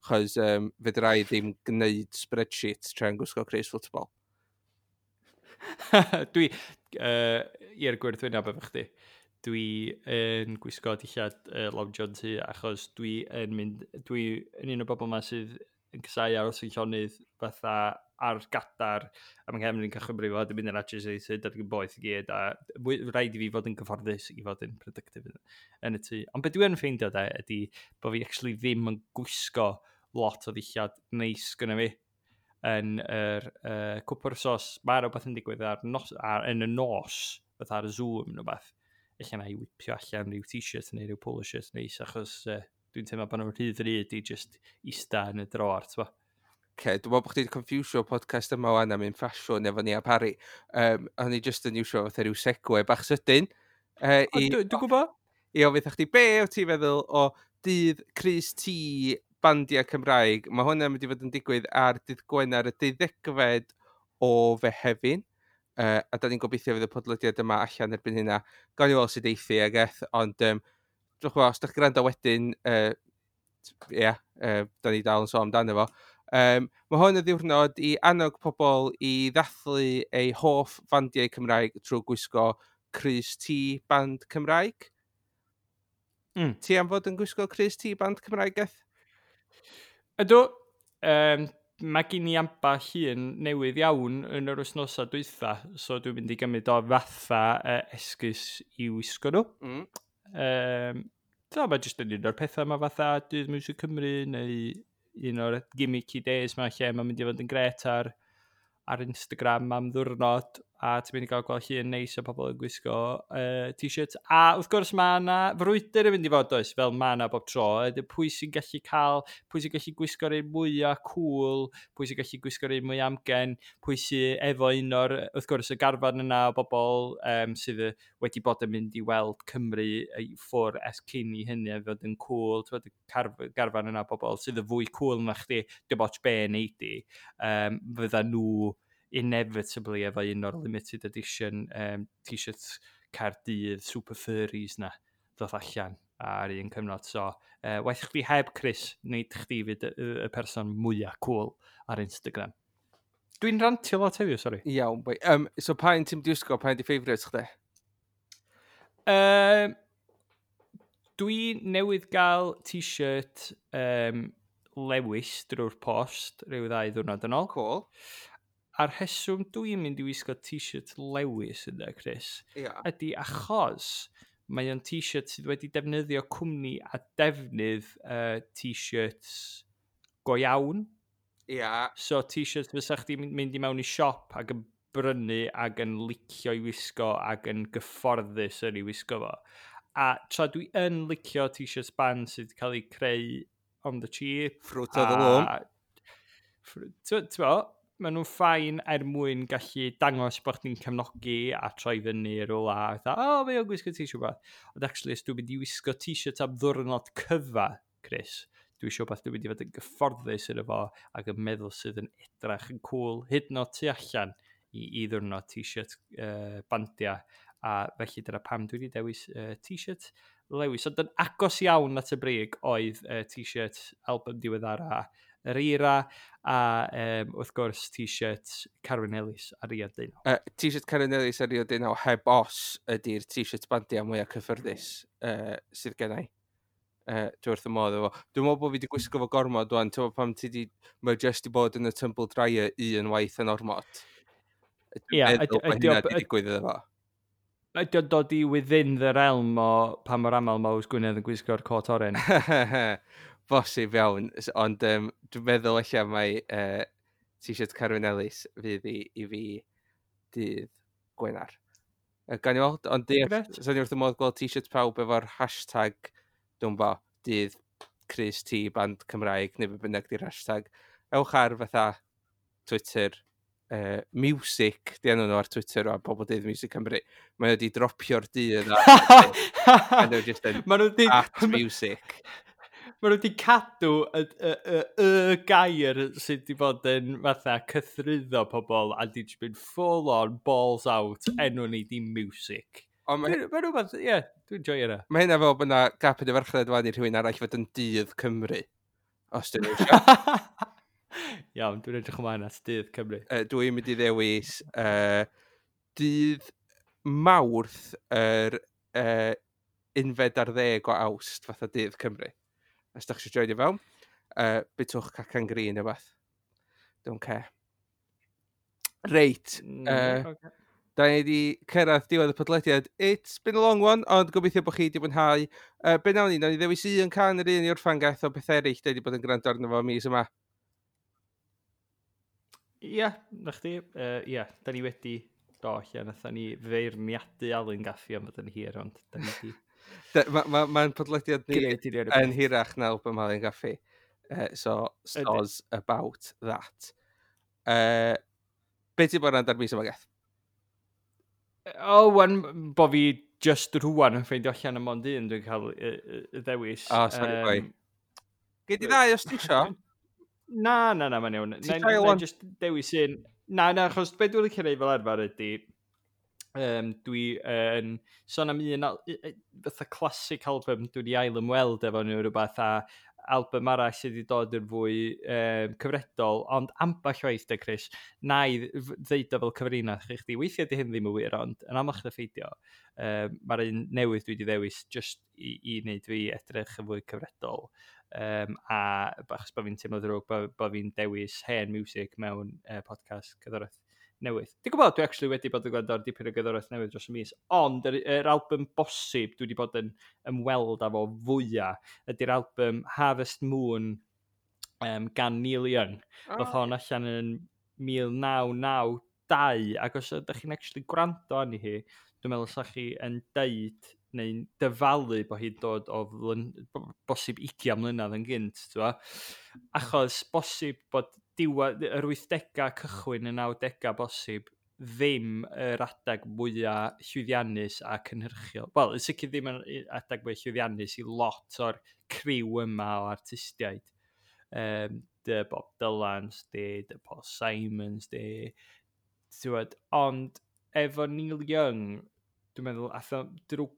Chos fedra i ddim gwneud spreadsheet tra'n gwisgo crys football. Dwi, i'r gwrthwyneb efo chdi, dwi yn gwisgo dillad Long John tŷ achos dwi yn mynd, dwi yn un o'r bobl yma sydd yn casáu aros yn llonydd fatha ar gadar, a mae nghefn i'n cychwyn brifo, a dwi'n mynd yn agitated, a dwi'n boeth i gyd, a rhaid i fi fod yn gyfforddus i fod yn productive yn y tŷ. Ond beth dwi yn ffeindio de, ydy bod fi actually ddim yn gwisgo lot o ddillad neis gyda fi yn yr cwpwr sos. Mae rhywbeth yn digwydd ar nos, yn y nos, fatha ar y Zoom neu beth. Ella na i whipio allan rhyw t-shirt neu rhyw polo shirt neis, achos dwi'n teimlo bod nhw'n rhy ddrud i just ista yn y dror, t'bo. Okay, dwi'n meddwl bod chdi wedi confusio podcast yma wan am un ffasiwn efo ni a Parry. O'n i just yn iwsio fatha rhyw segue bach sydyn. Dwi'n gwybod. I ofyn chdi, be wyt ti'n feddwl o dydd Crys T bandiau Cymraeg? Mae hwnna'n mynd i fod yn digwydd ar dydd Gwener y 12fed o Fehefin. A da ni'n gobeithio fydd y podlediad yma allan erbyn hynna. Gawn ni weld sut eithi ag eth, ond dwi'n gwybod, os ydych chi'n gwrando wedyn, ie, da ni dal yn sôn amdano fo. Mae hwn yn ddiwrnod i annog pobl i ddathlu eu hoff fandiau Cymraeg trwy gwisgo crys T band Cymraeg. Ti am fod yn gwisgo crys T band Cymraeg, Eth? Ydw, mae gen i ambell un newydd iawn yn yr wythnosau dwytha, so dwi'n mynd i gymryd o fatha esgus i wisgo nhw. So, mae jyst yn un o'r pethau yma fatha Dydd Miwsig Cymru neu un o'r gimmicky days ma lle mae'n mynd i fod yn gret ar Instagram am ddwrnod, a ti'n mynd i gael gweld llun neis o pobl yn gwisgo t-shirt. A wrth gwrs mae yna frwydr yn mynd i fod, oes, fel mae yna bob tro. Ydy pwy sy'n gallu cael, pwy sy'n gallu gwisgo'r un mwyaf cool, pwy sy'n gallu gwisgo'r un mwy amgen, pwy sy'n efo un o'r, wrth gwrs, y garfan yna o bobl sydd wedi bod yn mynd i weld Cymru i ffwr ers cyn i hynny a fod yn cool. Ti'n gwbod, y garfan yna o bobl sydd yn fwy cool na chdi, dim ots be neud di, fydda nhw inevitably efo un o'r limited edition t-shirts Caerdydd Super Furries na ddoth allan ar un cyfnod. So, waeth chdi heb Chris, nid chdi fydd y person mwyaf cool ar Instagram. Dwi'n rantio lot heddiw, sori. Iawn, boi. So pa un ti'n wisgo, pa un di favourites chdi? Dwi newydd gael t-shirt Lewis drwy'r post rhyw 2 ddiwrnod yn ôl. Cool. A'r rheswm dwi'n mynd i wisgo t-shirt Lewis yna, Chris, ydy achos mae o'n t-shirt sydd wedi defnyddio cwmni a defnydd t-shirts go iawn. So t-shirts fysa chdi mynd i mewn i siop ac yn brynu ac yn licio i wisgo ac yn gyfforddus yn ei wisgo fo. A tra dwi yn licio t-shirts band sydd wedi cael eu creu on the cheap. Fruit of the Loom. Ti'n bo, maen nhw'n fine er mwyn gallu dangos bod chdi'n cefnogi a troi fyny rhywle a fatha, o, mae o'n gwisgo t-shirt beth. Ond actually, os dwi'n mynd i wisgo t-shirt am ddwrnod cyfa, Chris, dwi eisiau beth dwi'n mynd i fod yn gyfforddus yn efo ac yn meddwl sydd yn edrach yn cool, hyd yn oed tu allan i ddwrnod t-shirt bandiau. A felly dyna pam dwi wedi dewis t-shirt Lewis. Ond yn agos iawn at y brig oedd t-shirt album diweddara yr Eira a wrth gwrs t-shirt Carwyn Ellis a Rio Deunaw. T-shirt Carwyn Ellis a Rio Deunaw heb os ydy'r t-shirt bandiau mwyaf cyffyrddus sydd gen i. Dwi wrth y modd efo. Dwi'n meddwl bod fi wedi gwisgo fo gormod wan. Ti'n meddwl pam ti di, mae just i bod yn y tumble dryer un waith yn ormod. Dwi'n Ie, meddwl bod hynna wedi digwydd iddo fo. Ydy o'n dod i within the realm o pa mor aml mae Ows Gwynedd yn gwisgo'r cot oren? Bosib iawn, ond dwi'n meddwl ella mai t-shirt Carwyn Ellis fydd i fi dydd Gwener. Gawn ni weld, ond Grêt. so ni wrth y modd gweld t-shirt pawb efo'r hashtag, dwi'n bo, dydd Crys T band Cymraeg, neu be bynnag di'r hashtag. Ewch ar fatha Twitter, Music, di enw nhw ar Twitter o pobl dydd Music Cymru. Mae wedi dropio'r dydd a nhw jyst yn Ma' nhw 'di at music. Ma' nhw wedi cadw y gair sydd wedi bod yn fatha cythruddo pobl a di jyst mynd full on balls out enw ni di music. Ond Dwi'n ma' rhywbeth, ie, dwi'n joio hynna. Mae hynna fel bod 'na gap yn y farchnad wan i rhywun arall fod yn dydd Cymru. Os dyn nhw eisiau. Iawn, dwi'n edrych ymlaen at dydd Cymru. Dwi'n mynd i ddewis dydd Mawrth yr 11 o Awst, fatha dydd Cymru. Os da chi eisiau joinio fewn. Bitwch cacan green neu beth. Don't care. Reit. Okay. Da ni wedi cyrraedd diwedd y podlediad. It's been a long one, ond gobeithio bod chi wedi mwynhau. Be nawn ni? Nawn ni ddewis un cân yr un i orffan, gaeth, o beth eraill da ni wedi bod yn gwrando arno fo mis yma. Ie, yeah, na chdi. Ie, da ni wedi do, lle nathon ni feirniadu Alun Gaffi am fod yn hir, ond da ni wedi Mae'n ma podlediad ni yn hirach na album Alun Gaffi. So, soz about that. Be ti'n bod yn ar mis yma, Geth? O, oh, wan, bo fi just rwan yn ffeindio allan am ond un dwi'n cael y ddewis. Oh, sorry, boy. Gei di ddau os ti isio? Na, na, na, mae'n iawn. Ti'n cael one? Just dewis un. Na, na, achos be dwi'n licio neud fel arfer ydy, dwi yn sôn am un fatha classic album dwi wedi ail ymweld efo nhw rhywbeth a album arall sydd wedi dod yn fwy cyfredol, ond ambell waith de, Chris, na i ddeud o fel cyfrinach i chdi. Weithiau di hyn ddim yn wir, ond yn amlach na pheidio, mae'r un newydd dwi wedi ddewis just i wneud fi edrych yn fwy cyfredol. A achos bod fi'n teimlo ddrwg bo fi'n dewis hen music mewn podcast cerddoriaeth newydd. Dwi'n gwybod, dwi actually wedi bod yn gwrando ar dipyn o gerddoriaeth newydd dros y mis, ond yr album bosib dwi wedi bod yn ymweld â fo fwyaf ydy'r album Harvest Moon gan Neil Young. Oh. Ddoth hon allan yn 1992, ac os ydych chi'n actually gwrando arni hi, dwi'n meddwl sa chi yn deud neu'n dyfalu bod hi'n dod o bosib 20 mlynedd yn gynt, t'bo? Achos bosib bod diwedd yr 80au, cychwyn y 90au bosib, ddim yr adeg mwyaf llwyddiannus a cynhyrchiol. Wel, yn sicr ddim yn adeg mwyaf llwyddiannus i lot o'r criw yma o artistiaid. Dy Bob Dylans, dy Paul Simons, dy... T'wod, ond efo Neil Young, dwi'n meddwl, ath o drwy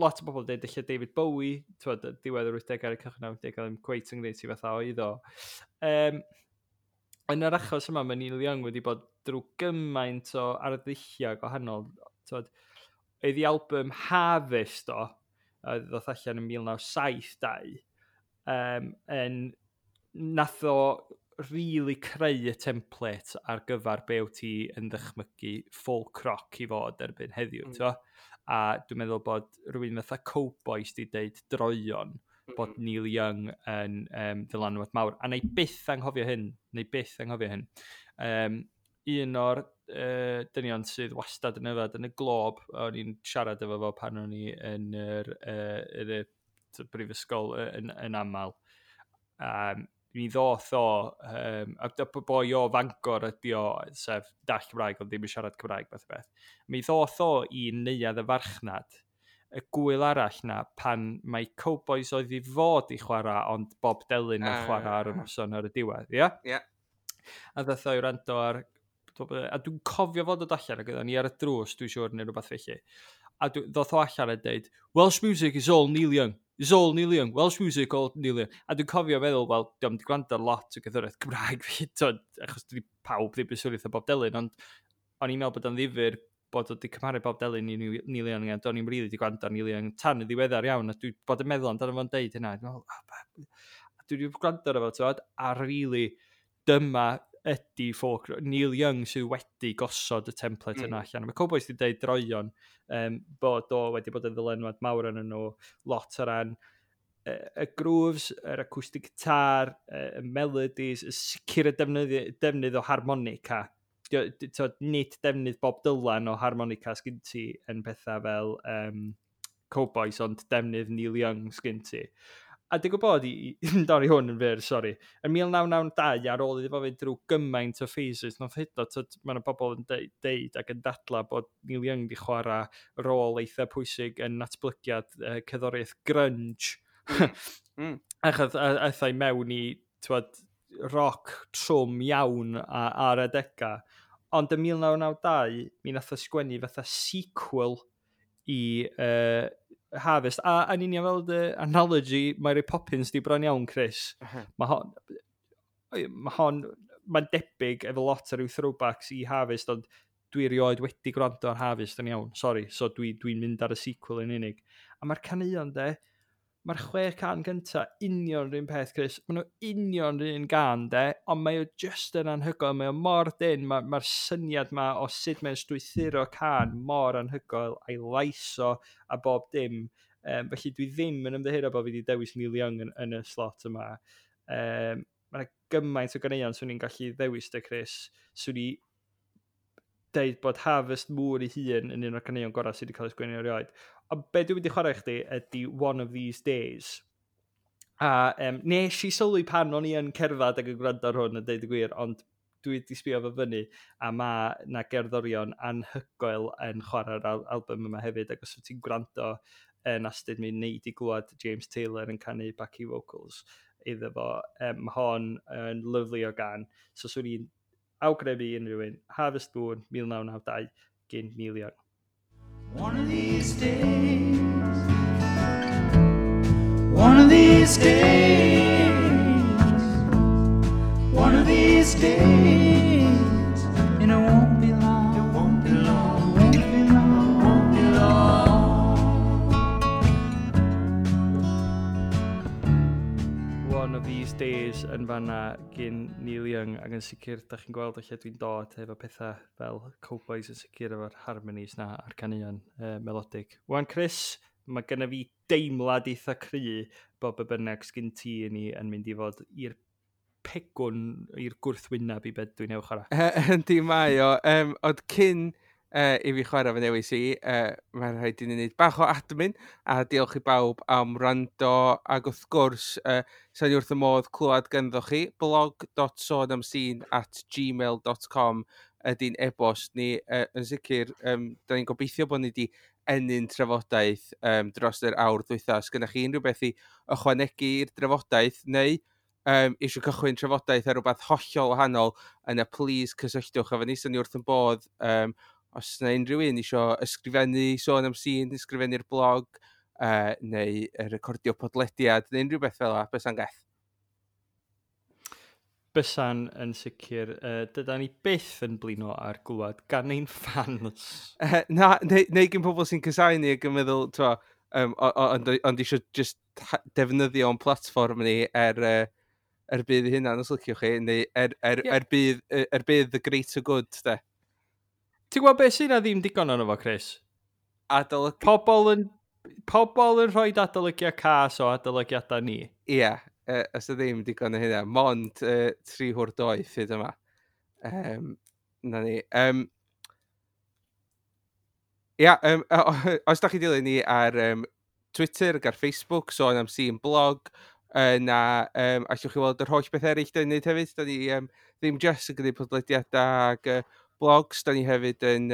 lot o bobl dweud ella David Bowie, t'wod, diwedd yr 80au ar y cychwyn 90au, ddim cweit yn gwneud ti fatha oedd o. Yn yr achos yma, mae Neil Young wedi bod drwy gymaint o arddulliau gwahanol. T'wod, oedd ei album Harvest o, a ddoth allan yn 1972, yn nath o really creu y template ar gyfer be wyt ti yn ddychmygu folk rock i fod erbyn heddiw, t'bo? A dwi'n meddwl bod rhywun fatha Cowboys di deud droion bod Neil Young yn ddylanwad mawr. A na i byth anghofio hyn, na i byth anghofio hyn. Un o'r dynion sydd wastad yn yfed yn y Glob, o'n i'n siarad efo fo pan o'n i yn y brifysgol yn aml. Mi ddoth o, a boi o Fangor ydi o, sef dall Cymraeg, ond ddim yn siarad Cymraeg, fath o beth. Mi ddoth o i neuadd y farchnad, y gwyl arall na, pan mae Cowboys oedd i fod i chwarae, ond Bob Delyn yn chwarae ar y noson ar y diwedd, ie? Ie. A ddoth o i wrando ar, a dwi'n cofio fod o allan, ac oedden ni ar y drws, dwi'n siŵr, neu rhywbeth felly. A ddoth o allan a deud, "Welsh music is all Neil Young. It's all Neil Young. Welsh music, all Neil Young." A dwi'n cofio feddwl, wel, diolch wedi gwrando ar lot o gerddoriaeth Cymraeg fi, t'od, achos dydi pawb ddim yn swnio fatha Bob Delyn, ond o'n i'n meddwl bod o'n ddifyr bod o wedi cymharu Bob Delyn i Neil Young, a do'n i'm rili wedi gwrando ar Neil Young tan y ddiweddar iawn, a dwi bod yn meddwl amdano fo'n deud hynna. Dwi'n meddwl, "Ah, a dwi wedi gwrando ar efo, t'od, a really, dyma ydy folk, Neil Young sydd wedi gosod y template yna allan. Mae Cowboys wedi deud droion bod o wedi bod yn ddylanwad mawr arnyn nhw, lot o ran y grooves, yr acoustic guitar, y melodies, y sicr y defnydd o harmonica. T'od, nid defnydd Bob Dylan o harmonica sgyn ti yn pethau fel Cowboys, ond defnydd Neil Young sgyn ti. A dwi'n gwybod, i dorri hwn yn fyr, sori, yn 1992, ar ôl iddo fo fynd drwy gymaint o phases, nath hyd yn oed, mae yna bobl yn deud ac yn dadla bod Neil Young di chwarae rôl eitha pwysig yn natblygiad cerddoriaeth grunge. Achos aeth o i mewn i, t'wod, rock trwm iawn ar adega. Ond yn 1992, mi nath o sgwennu fatha sequel i Harvest. A yn union fel dy analogy Mary Poppins di bron iawn, Chris. Mae hon, mae'n debyg efo lot o ryw throwbacks i Harvest, ond dwi erioed wedi gwrando ar Harvest yn iawn, sorry, so dwi'n mynd ar y sequel yn unig. A mae'r caneuon de, Mae'r 6 cân gynta union yr un peth, Chris. Maen nhw union yr un gân, de, ond mae o just yn anhygoel. Mae o mor dyn, mae'r syniad ma o sut mae'n strwythuro cân mor anhygoel, a'i lais o a bob dim. Felly dwi ddim yn ymddiheuro bod fi wedi dewis Neil Young yn y slot yma. Mae yna gymaint o ganeuon swn i'n gallu ddewis de, Chris. Swn i deud bod Harvest Moon ei hun yn un o'r caneuon gorau sydd wedi cael ei sgwennu erioed. Ond be dwi'n mynd i chwarae i chdi ydy One of These Days. A nes i sylwi pan o'n i yn cerdded ac yn gwrando ar hwn yn deud y gwir, ond dwi wedi sbio fo fyny a mae na gerddorion anhygoel yn chwarae'r album yma hefyd, ac os wyt ti'n gwrando yn astud mi wneud i glwad James Taylor yn canu backing vocals iddo fo. Mae hon yn lyfli o gân, so swn i'n awgrymu unrhyw un, Harvest Moon 1992 gyn Neil Young. One of these days, one of these days, one of these days, and it won't be long, it won't be long, it won't be long, it won't be long. One of These Days yn fanna gyn Neil Young, ac yn sicr, da chi'n gweld o lle dwi'n dod efo pethau fel Cowboys yn sicr efo'r harmonies na a'r caneuon melodic. Wan Chris, mae genna fi deimlad eitha cry bod be bynnag sgyn ti i ni yn mynd i fod i'r pegwn, i'r gwrthwyneb i beth dwi'n newch chwarae. Yndi mae o. Ond cyn i fi chwarae fy newis i, mae'n rhaid i ni wneud bach o admin, a diolch i bawb am wrando, ac wrth gwrs, sa'n i wrth y modd clywed ganddo chi, blog.sonamscene@gmail.com ydy'n e-bost ni. Yn sicr, da ni'n gobeithio bod ni wedi ennyn trafodaeth dros yr awr dwytha. Os gynnach chi unrhyw beth i ychwanegu i'r drafodaeth, neu eisiau cychwyn trafodaeth ar rhywbeth hollol wahanol, yna please cysylltwch efo ni, sa'n ni wrth yn bodd. Os yna unrhyw un eisiau ysgrifennu Sôn am Sîn, ysgrifennu'r blog, neu recordio podlediad, neu unrhyw beth fel 'a, bysa'n geth. Bysa'n yn sicr. Dyda ni byth yn blino ar glwad gan ein fans. Na, neu gen pobl sy'n casáu ni ac yn meddwl, t'mo, ond eisiau just defnyddio o'n platfform ni er budd i hynna, os liciwch chi, neu er budd the greater good, de. Ti'n gwybod beth sy'n na ddim digon ono fo, Chris? Adolygu. Pobl yn rhoi adolygiad cas o adolygiadau ni. Ie, os y ddim digon o hynna, mond 3 hwr doeth hyd yma. Na ni. Ia, os da chi dilyn ni ar Twitter ac ar Facebook, Sôn am Sîn blog, na allwch chi weld yr holl beth eraill da ni'n neud hefyd. Da ni ddim just yn gwneud podlediadau ac blogs, da ni hefyd yn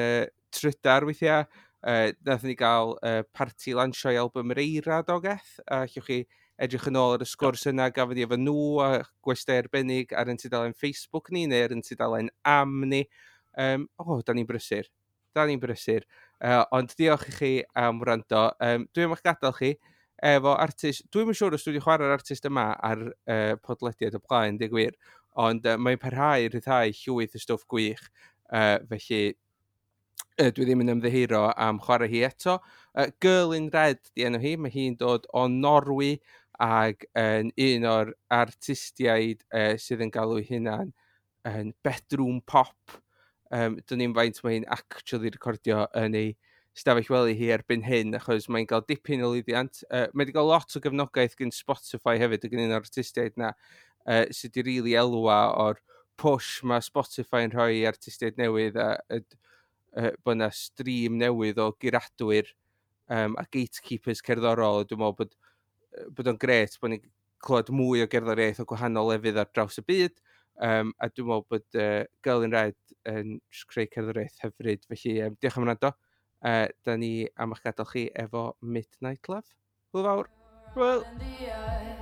trydar weithiau. Nathon ni gael parti lansio i album yr Eira dogeth. A allwch chi edrych yn ôl ar y sgwrs yna gafon ni efo nhw a gwestai arbennig ar ein tudalen Facebook ni neu ar ein tudalen am ni. O, da ni'n brysur. Da ni'n brysur. Ond diolch i chi am wrando. Dwi am eich gadael chi efo artist. Dwi'm yn siŵr os dwi wedi chwarae'r artist yma ar podlediad o blaen, deud gwir. Ond mae'n parhau i ryddhau llwyth o stwff gwych. Felly dwi ddim yn ymddiheuro am chwarae hi eto. Girl in Red di enw hi. Mae hi'n dod o Norwy ac yn un o'r artistiaid sydd yn galw ei hunan yn bedroom pop. Dwn i'm faint mae hi'n actually recordio yn ei stafell wely hi erbyn hyn, achos mae'n cael dipyn o lwyddiant. Mae wedi cael lot o gefnogaeth gan Spotify hefyd, ac yn un o'r artistiaid na sydd wedi rili elwa o'r push mae Spotify yn rhoi i artistiaid newydd a bod yna stream newydd o guradwyr a gatekeepers cerddorol. Dwi'n meddwl bod o'n gret bod ni'n clywed mwy o gerddoriaeth o gwahanol lefydd ar draws y byd. A dwi'n meddwl bod Girl in Red yn jyst creu cerddoriaeth hyfryd. Felly diolch am wrando. Da ni am eich gadael chi efo Midnight Love. Hwyl fawr. Hwyl. And the